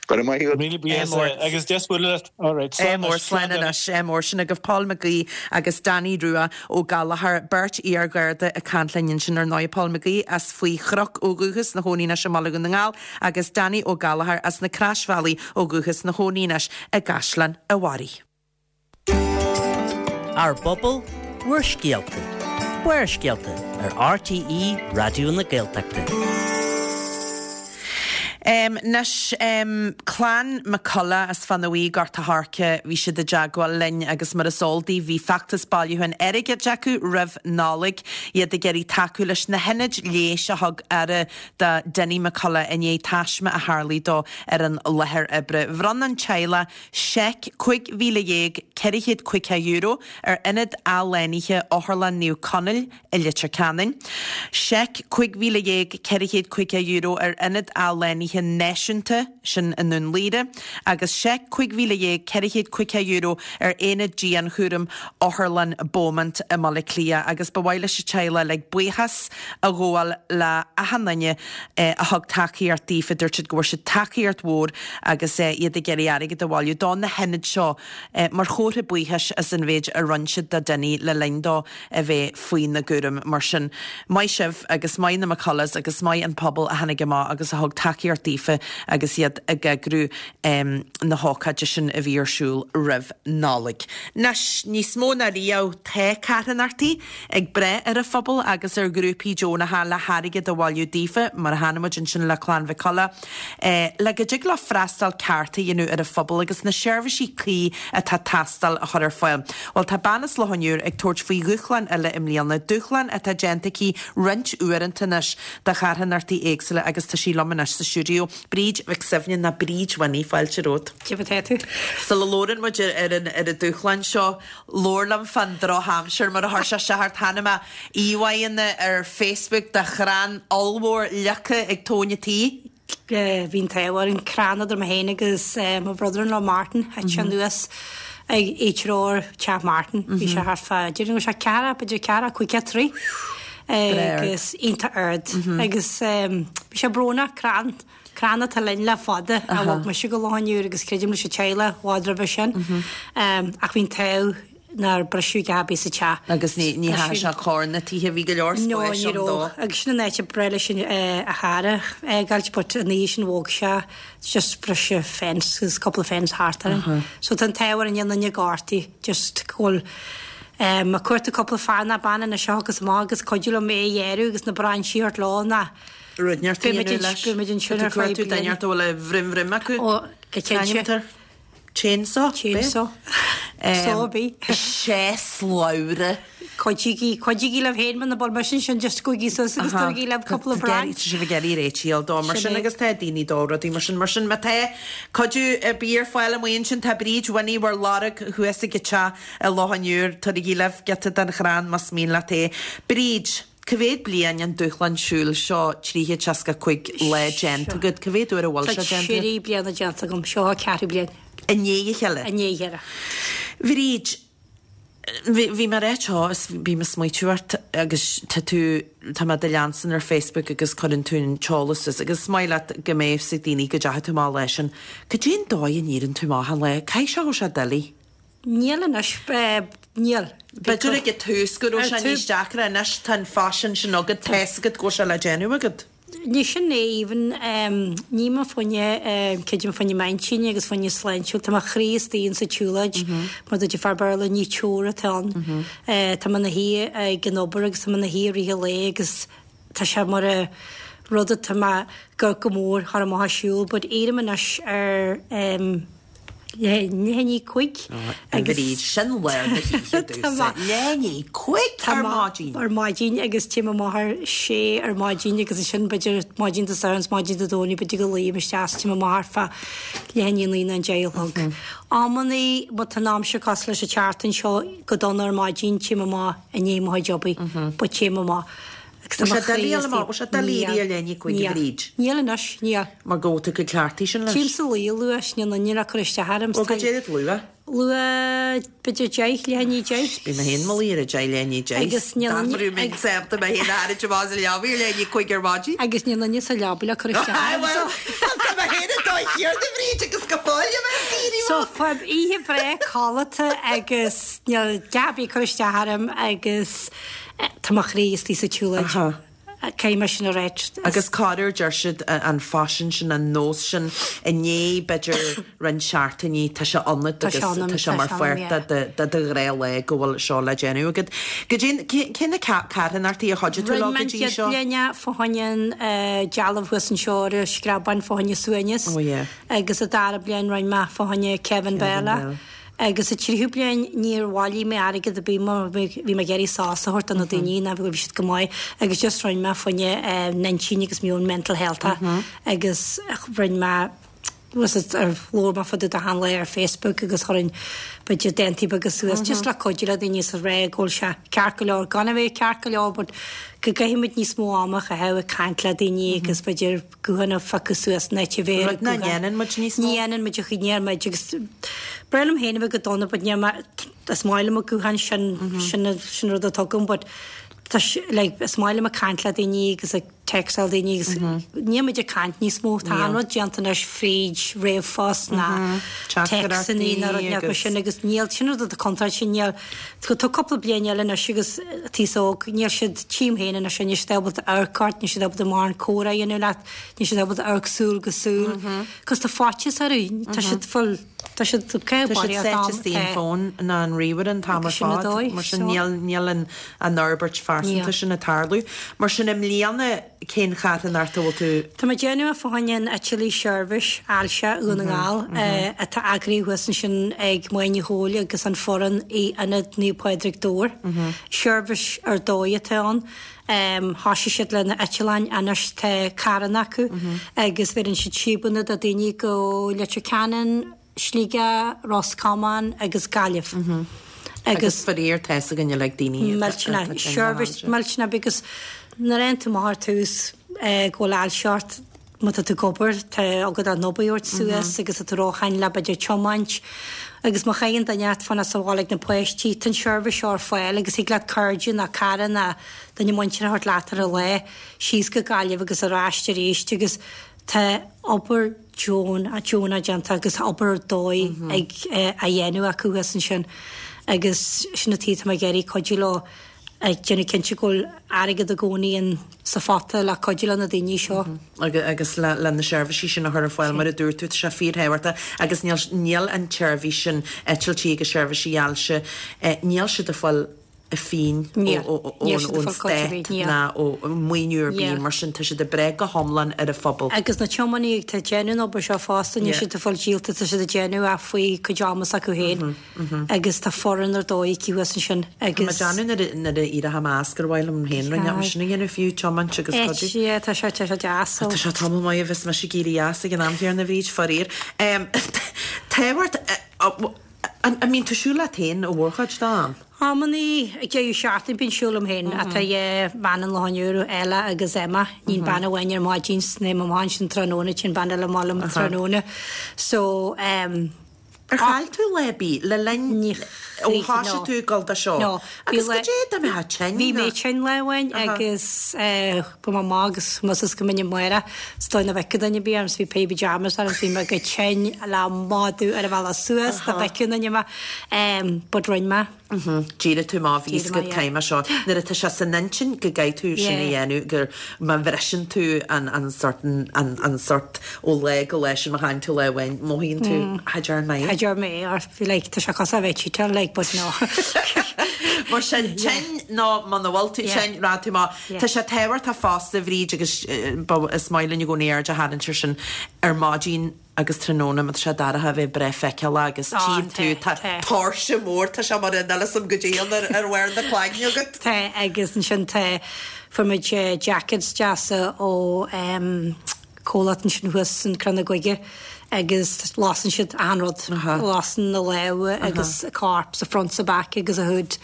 Go raibh maith agat. Míle buíochas agus deas bualadh leat. All right, slán anois. Slán anois. Ádh mór. Sin agaibh Paul McGee agus Danny Rua Ó Gallchóir, beirt iar-Gharda ag caint linn ansin ar ndóigh. Paul McGee as Faoi Chnoc ó dhúchas, ina chónaí anois i mBaile Dhún na nGall agus Danny Ó Gallchóir as na Croisbhealaí ó dhúchas, ina chónaí anois i gCaisleán a' Bharraigh. Ár bpobal, bhur scéalta. Barrscéalta ar RTÉ Raidió na Gaeltachta. Anois, clann McCullough as Fána Bhuí, Gort a' Choirce, bhí siad i dteagmháil linn agus mar is eol daoibh bhí feachtas bailiúcháin airgid acu roimh Nollaig, iad ag iarraidh tacú leis na hionaid leighis a thug aire do Dinny McCullough i ndiaidh taisme a tharlaigh dó ar an láthair oibre. Bhronn an teaghlach seic €15,450 ar Ionad Athshlánaithe Otharlann Naomh Conaill i Leitir Ceanainn, seic €15,450 ar Ionad Athshlánaithe Náisiúnta, sin i nDún Laoghaire, agus seic €15,450 ar Aonad Dianchúraim Otharlann Beaumont i mBaile Átha Cliath agus ba mhaith leis an teaghlach uilig buíochas a ghabháil le achan duine a thug tacaíocht daofa. Dúirt siad go bhfuair siad tacaíocht mhór agus iad ag iarraidh airgead a bhailiú do na hionaid seo mar chomhartha buíochais as an mhéid a rinne siad do Dinny le linn dó a bheith faoina gcúram. Mar sin, maith sibh agus maith na McCulloughs agus maith an pobal a tháinig amach agus a thug tacaíocht daofa agus iad ag eagrú na hócáide sin a bhí ar siúl roimh Nollaig. Anois, níos mó ná riamh, tá carthanachtaí ag brath ar an phobal agus ar ghrúpaí deonacha le hairgead a bhailiú daofa, mar a chonaic muid ansin le Clann Mhic Colla, le go dtig leo freastal ceart a dhéanamh ar an phobal agus na seirbhísí cuí atá ag teastáil a chur ar fáil. Bhuel, tá bean as Loch an Iúir ag tabhairt faoi dhúshlán eile i mbliana, dúshlán atá déanta aici roinnt uaireanta anois do charthanachtaí éagsúla agus tá sí liom anois sa stiúideo. Bríd Mhic Suibhne, nó Bríd Winnie, fáilte romhat. Cad é mar atá tú? Sula labhrann muid ar an ar an dúshlán seo, labhair liom fán drochaimsir mar a chuir sé isteach ort. Chonaic mé íomhánna ar Facebook de chrann ollmhór leagtha ag tóin an tí. Bhí an t-ádh orainn, crann idir mé féin agus mo brother-in-law Martin, thit sé anuas ag áitreabh teach Martin. Bhí sé thart fá, déarfainn go raibh sé ceathracha, b'fhéidir ceathracha, caoga troigh agus iontach ard. Agus bhí sé brónach, crann, crann atá linn le fada, a bhog mise go Loch an Iúir agus creidim leis an teaghlach i bhfad roimhe sin. Ach bhí an t-ádh nár briseadh a dhath ar bith sa teach. Agus ní dheachaigh sé chor na tithe, bhí go leor spáis ann dó. Agus sin an áit a breá leis a chara a fhágáilt but an oíche sin bhog sé, just briseadh fence agus cúpla fence thart orainn. So tá an t-ádh orainn níl aon duine gortaithe, just go bhfuil. Ag cuartú cúpla fear ná bean anois a thiocfas amach agus cuidiú liom é a ghearradh agus na brainsí a thabhairt leo ná Rud inteacht a beidh muid dhéanamh leis. beidh muid ansin Tá ar tú feadh cuartú duine bliana. inteacht a bhfuil a bhrim bhrim acu. Ó, go cinnte. Ceantar. Chainsaw? Chainsaw. Saw ar bith. Sé slabhra. Cuidígí, cuidígí libh féin muna bhfuil mise ansin just gabhaigí suas agus tabhairigí libh cúpla Tá sibh ag iarraidh réitigh dó mar Sin sin é. agus tá daoine dó rudaí mar sin. Mar sin má tá cuidiú ar bith ar fáil amuigh ansin tá Bríd Winnie bhur lorg thuas ag an teach i Loch an Iúir. Tabhairigí libh giota den chrann más mian leat é. Bríd, cá mhéad bliain an dúshlán siúil seo 365 lá déanta agat? Cá mhéad uair a bhfuil Tá sé déanta agat? trí bliana déanta agam. Seo an ceathrú bliain. I ndiaidh a chéile? I ndiaidh a chéile. Bhríd, Bhí, bhí mé ag ráit seo is bím ag smaoitiú ort agus tá tú, tá mé do leanstan ar Facebook agus cuireann tú an t-eolas suas agus is maith leat go mbeidh fhios ag daoine go dteachaigh tú amach an lá sin. Cad é an dóigh a n-éireann tú amach achan lá? Caithfidh sé go bhfuil sé doiligh. Níl anois, níl. B'fhéidir ag an tús go raibh sé níos deacra, anois tá an faisean sin agat, tá fhios agat go bhfuil sé le déanamh agat. Ní sin é even, ní mé fá choinne, creidim fá choinne m'intinn agus fá choinne sláintiúil, tá mo chroí istigh insa tsiúlóid, mar dúirt an fear Béarla, ní chore atá ann. Tá mé ina shuí ag an obair agus tá mé ina shuí i rith an lae agus tá sé mar a rud atá mé go go mór thar amach ag siúl but éirím anois ar leath i ndiaidh 5 agus Bríd, sin lár na hoíche domhsa. Leath i ndiaidh 5 ar maidin! Ar maidin agus téim amach ar sé ar maidin agus ansin b'fhéidir maidin Dé Sathairn is maidin Dé Domhnaigh b'fhéidir go luím isteach is téim amach ar feadh leath i ndiaidh 9 nó an 10 a chlog. Amannaí má tá an aimsir cosúil leis an tseachtain seo go dona ar maidin téim amach i ndiaidh mo chuid obair but téim amach. Agus tá mo chroí istigh. Bhfuil sé doiligh éirí ar leath i ndiaidh 5 a Bhríd? Níl anois, níl. Mar go bhfuil tú chomh cleachtaithe sin leis. Téim sa luí luath, níl aon duine le cur isteach orm. Bhuel, goidé rud luath? Luath, b'fhéidir 10, leath i ndiaidh 10. Bím mé féin i mo luí ar a 10, leath i ndiaidh 10. Agus níl aon. Dá mbeadh mé sásta mé féin a tharraingt amach as an leabaidh ar leath i ndiaidh 5 ar maidin. Agus níl aon duine sa leabaidh le cur isteach orm. Bhuel, tá mé féin ag dóigh chéarna a Bhríd agus go fóill a bheith ag éirí So, faighim oíche bhreá codlata agus níl dath ar bith ag cur isteach orm agus. Tá mo chroí istigh sa tsiúlóid. Caithfidh mé sin a ráit. Agus corruair deir siad an faisean sin, an nós sin, i ndiaidh b'fhéidir roinnt seachtainí tá sé ionat agus tá sé mar pháirt de do ghnáthlá go bhfuil seo le déanamh agat. Goidé, cé na carthanachtaí a chuidigh tú leo Rinne go mé an dtí chéad seo? bhliain é fá choinne an dealbh thuas anseo ar an Screabán fá choinne Suaimhneas agus an dara bliain rinne mé fá choinne Kevin Bell. Agus sa tríú bliain níor bhailigh mé airgead ar bith mar bhí mé ag iarraidh sos a thabhairt do na daoine ná bhí siad go maith agus just rinne mé fá choinne n'intinn agus meon mental health agus rinne mé was it ar labhair mé fá dtaobh de achan lá ar Facebook agus chuirinn b'fhéidir dántaí beaga suas just le cuidiú le daoine is a rá go bhfuil sé ceart go leor gan a bheith ceart go leor but go gcaithfimid níos mó ama a chaitheamh ag caint le daoine agus b'fhéidir guthán a phiocadh suas in áit a bheith ar Rud nach ndéanann muid níos mó. Ní dhéanann muid a chuid, ní dhéanann muid agus b'fhearr liom féin a bheith go dona but níl mé, is maith liom an guthán sin, sin sin rud atá agam but tá sé like is maith liom ag caint le daoine agus ag textáil daoine agus níl muid ag caint níos mó, tá an rud déanta anois fríd ríomhphost ná téacsanna ná rud mar sin agus níl, sin rud atá contráilte, níl Tá cúpla bliain eile anois agus an t-aos óg, níl siad, tchím féin anois, níl siad ábalta amharc ort, níl siad ábalta mórán comhrá a dhéanamh leat, níl siad ábalta amharc súil go súil. Cos tá faitíos orthu, tá siad full, tá siad ag Tá siad sáite istigh an fón ná an ríomhaire an t-am ar fad, mar sin níl, níl an an fhorbairt phearsanta sin ag tarlú. Mar sin i mbliana, Cén charthanacht a bhfuil tú. Tá mé ag déanamh fá choinne an Eitilí Seirbhís Ailse Dhún na nGall atá eagraithe thuas ansin ag Máire Ní Chomhaill agus an foireann i Ionad Naomh Pádraig Dobhair. Seirbhís ar dóigh atá ann. Thoisigh siad le na eitleáin anois tá carranna acu agus bheireann siad síobanna do daoine go Leitir Ceanainn, Sligeach, Ros Comáin agus Gaillimh. Agus faraor tá fhios againn uilig daoine Millteanach, seirbhís millteanach because nuair a fhaigheann tú amach ar tús go bhfuil ailse ort, má tá tú ag obair, tá agat an obair a thabhairt suas agus tá tú róshean le b'fhéidir tiomáint agus má chailleann duine ort fanacht sa bhaile ag na páistí, tá an seirbhís seo ar fáil agus thig leat cairde nó cara nó duine muinteartha a thabhairt leat ar an lá síos go Gaillimh agus ar ais arís agus Tá obair deonach déanta agus obair ar dóigh ag á dhéanamh acu thuas ansin agus sin an tuige atá mé ag iarraidh cuidiú leo. Ag déanamh cinnte go bhfuil airgead i gcónaí in sa phota le cuidiú le na daoine seo. Agus le na seirbhísí sin a chur ar fáil, mar a dúirt tú, tá sé fíorthábhachtach agus níl, níl an tseirbhís sin, eitiltí agus seirbhísí ailse, níl siad ag fáil pingin ón stát ná ó mhaoiniú ar bith, mar sin tá siad ag breith go hiomlán ar an phobal. Agus na tiománaithe atá ag déanamh an obair seo fosta, níl siad ag fáil díolta, tá siad ag déanamh é faoi cuid ama s'acu féin. Agus tá foireann ar dóigh aici thuas ansin agus. Tá mé ag déanamh nuair a éireoidh mé as gur mhaith liom féin roinnt mar sin a dhéanamh fiú, tiomáint agus cuidiú. Yeah, tá sé, tá sé deas so. Tá sé tamall maith a bheas mise ag éirí as ag an am chéanna, a Bhríd, faraor. Tábhacht, an mbíonn tú ag siúl leat féin an mhórchuid den am? Amannaí ag deireadh seachtaine bíonn siúl liom féin ach tá dhá bhean an Loch an Iúir, Ella agus Emma. Níonn bean amháin ar maidin 's téim amach ansin tráthnóna, téann bean eile amach liom tráthnóna. So, em. Ar chaill tú lá ar bith le linn ó thoisigh tú ag dul dó seo? No. Agus goidé dá mbeifeá tinn? Bhí mé tinn lá amháin agus chuaigh mé amach agus más is go minic Máire is dóigh nach bhfeicfeadh duine ar bith orm 's bhí péire pyjamas orm 's bhí mé go tinn le madadh ar an bhealach suas dá bhfeicfeadh duine mé but rinne mé. D'éirigh tú amach, bhí fhios agat caithfidh mé seo. Nuair atá sé san intinn go gcaithfidh tú sin a dhéanamh, gur má bhriseann tú an an sort an an sort ó lá go lá sin má chailleann tú lá amháin, mothaíonn tú cha dtearn mé é. Cha dtearn mé é or bhí like tá sé cosúil le bheith cheatáil like but no. Mar sin tinn nó muna bhfuil tú tinn, rachaidh tú amach. Tá sé tábhachtach fosta a Bhríd agus is maith linn i gcónaí aird a tharraingt air sin ar maidin, agus tráthnóna má tá sé dorcha a bheith breá feiceálach agus tchím tú, tá tóirse mór, tá sé mar an fhios agam goidé ann ar bharr na cloigne agat. Tá agus ansin tá, fuair muid jackets deasa ó comhlacht ansin thuas in Crann na Gaige agus lasann siad achan rud, lasann na lámha agus corp sa front sa back agus a hood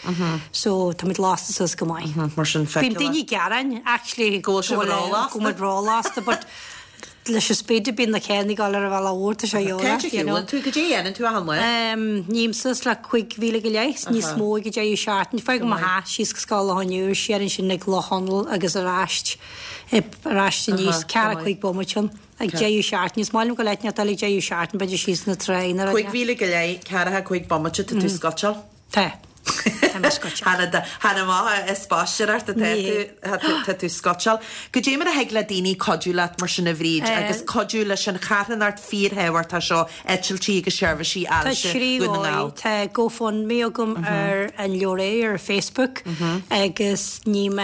so tá muid lasta suas go maith. Mar sin feiceálach. Bíonn daoine ag gearán actually go bhfuil sibh rólasta. Go bhfuil muid rólasta but leis an speed a bíonn na carranna ag dul ar an bhealach mhór, tá sé Cá fhad a shiúlann tú? Goidé a dhéanann tú achan lá? Ním suas le 5,000 go leith, níos mó ag an deireadh seachtaine. Fágaim mo theach síos go Scoil Loch an Iúir, siar ansin ag Loch Chonaill agus ar ais, ar ais aníos, ceathracha cúig bomaite ann ag deireadh seachtaine. Is maith liom go leith neart eile ag deireadh seachtaine, b'fhéidir síos na tráigh nó rud. 5,000 go leith, ceathracha cúig bomaite, tá tú scuiteáil. Tá. Tá mé scuiteáil. Chan amach as spaisteoireacht atá tú, tá tú scuiteáil. Goidé mar a thig le daoine cuidiú leat mar sin a Bhríd agus cuidiú leis an charthanacht fíorthábhachtach seo, eitiltí agus seirbhísí ailse Dhún na nGall? Tá GoFundMe agam ar an leabhar ar Facebook agus ním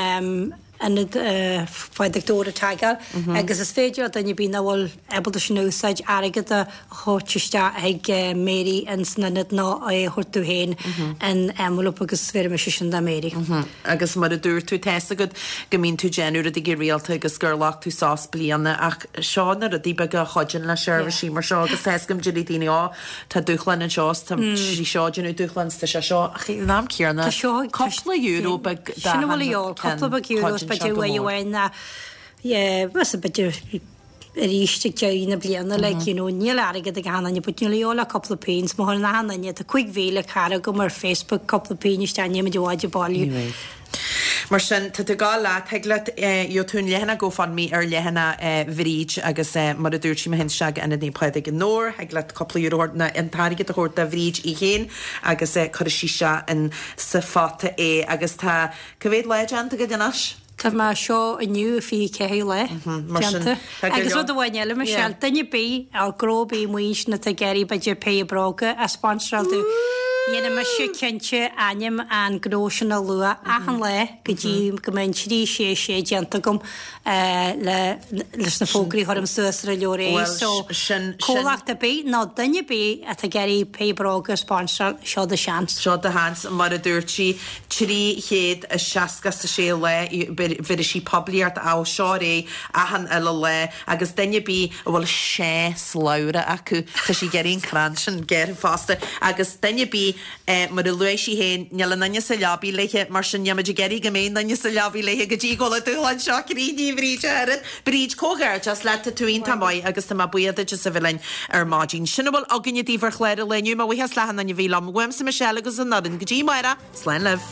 Ionad Phádraig Dobhair a tagáil agus is féidir le duine ar bith nach bhfuil ábalta sin a úsáid airgead a thabhairt isteach chuig Mary ins an ionad nó é a thabhairt domh féin in envelope agus bhéarfaidh mise sin do Mary. Agus mar a dúirt tú, tá's agat go mbíonn tú ag déanamh rudaí go rialta agus gur ghlac tú sos bliana ach seo na rudaí beaga a chuidíonn le seirbhísí mar seo agus tá's agam déarfaidh daoine ó tá dúshlán anseo is tá sí seo ag déanamh dúshlán is tá sé seo ach ag an am céanna cúpla euro beag Sin a bhfuil a dhíobháil, cúpla beag euro is b'fhéidir uair amháin ná yeah b'fhéidir arís ag deireadh na bliana like you know níl airgead ag achan duine but níl a dhíobháil ach cúpla pingin má chuireann achan duine tá 5,000 cara agam ar Facebook cúpla pingin isteach níl muid i bhfad ag bailiú. Ní bheidh. Mar sin, tá tú ag gabháil leat, thig leat, gheobhaidh tú an leathanach GoFundMe ar leathanach Bhríd agus mar a dúirt sí, má théann isteach go Ionad Naomh Pádraig i nDobhar, thig leat cúpla euro a thabhairt nó an t-airgead a thabhairt do Bhríd í féin agus cuirfidh sí isteach in sa phota é agus tá, cá mhéad lá déanta agat anois? Tá mé seo inniu 24 lá déanta. Agus rud amháin eile, Michelle, duine ar bith, nó gnó ar bith amuigh ansin atá ag iarraidh b'fhéidir péire bróga a sponsoráil domh, dhéanfaidh mise cinnte ainm an gnó sin a lua achan lá go dtí go mbeidh an 3 6 6 déanta agam le leis na fógraí a chuirim suas ar an leabhar é. So, comhlacht ar bith nó duine ar bith atá ag iarraidh péire bróga a sponsoráil, seo do sheans. Seo do sheans, mar a dúirt sí. 366 lá, bhéarfaidh sí poiblíocht ó seo ar aghaidh achan uile lá agus duine ar bith a bhfuil sé slabhra acu, tá sí ag iarraidh an crann sin gearrtha fosta agus duine ar bith, mar a luaigh sí féin, níl aon duine sa leabaidh léithe, mar sin níl muid ag iarraidh go mbeidh aon duine sa leabaidh léithe go dtí go bhfuil an dúshlán seo críochnaithe, a Bhríd, a oiread. Bríd, comhghairdeas leat, tá tú iontach maith agus tá mé buíoch duit as a bheith linn ar maidin. Sin a bhfuil againne daoibh ar chlár an lae inniu. Mo bhuíochas le achan duine a bhí liom. Uaimse Michelle agus an fhoireann. Go dtí amárach, slán libh.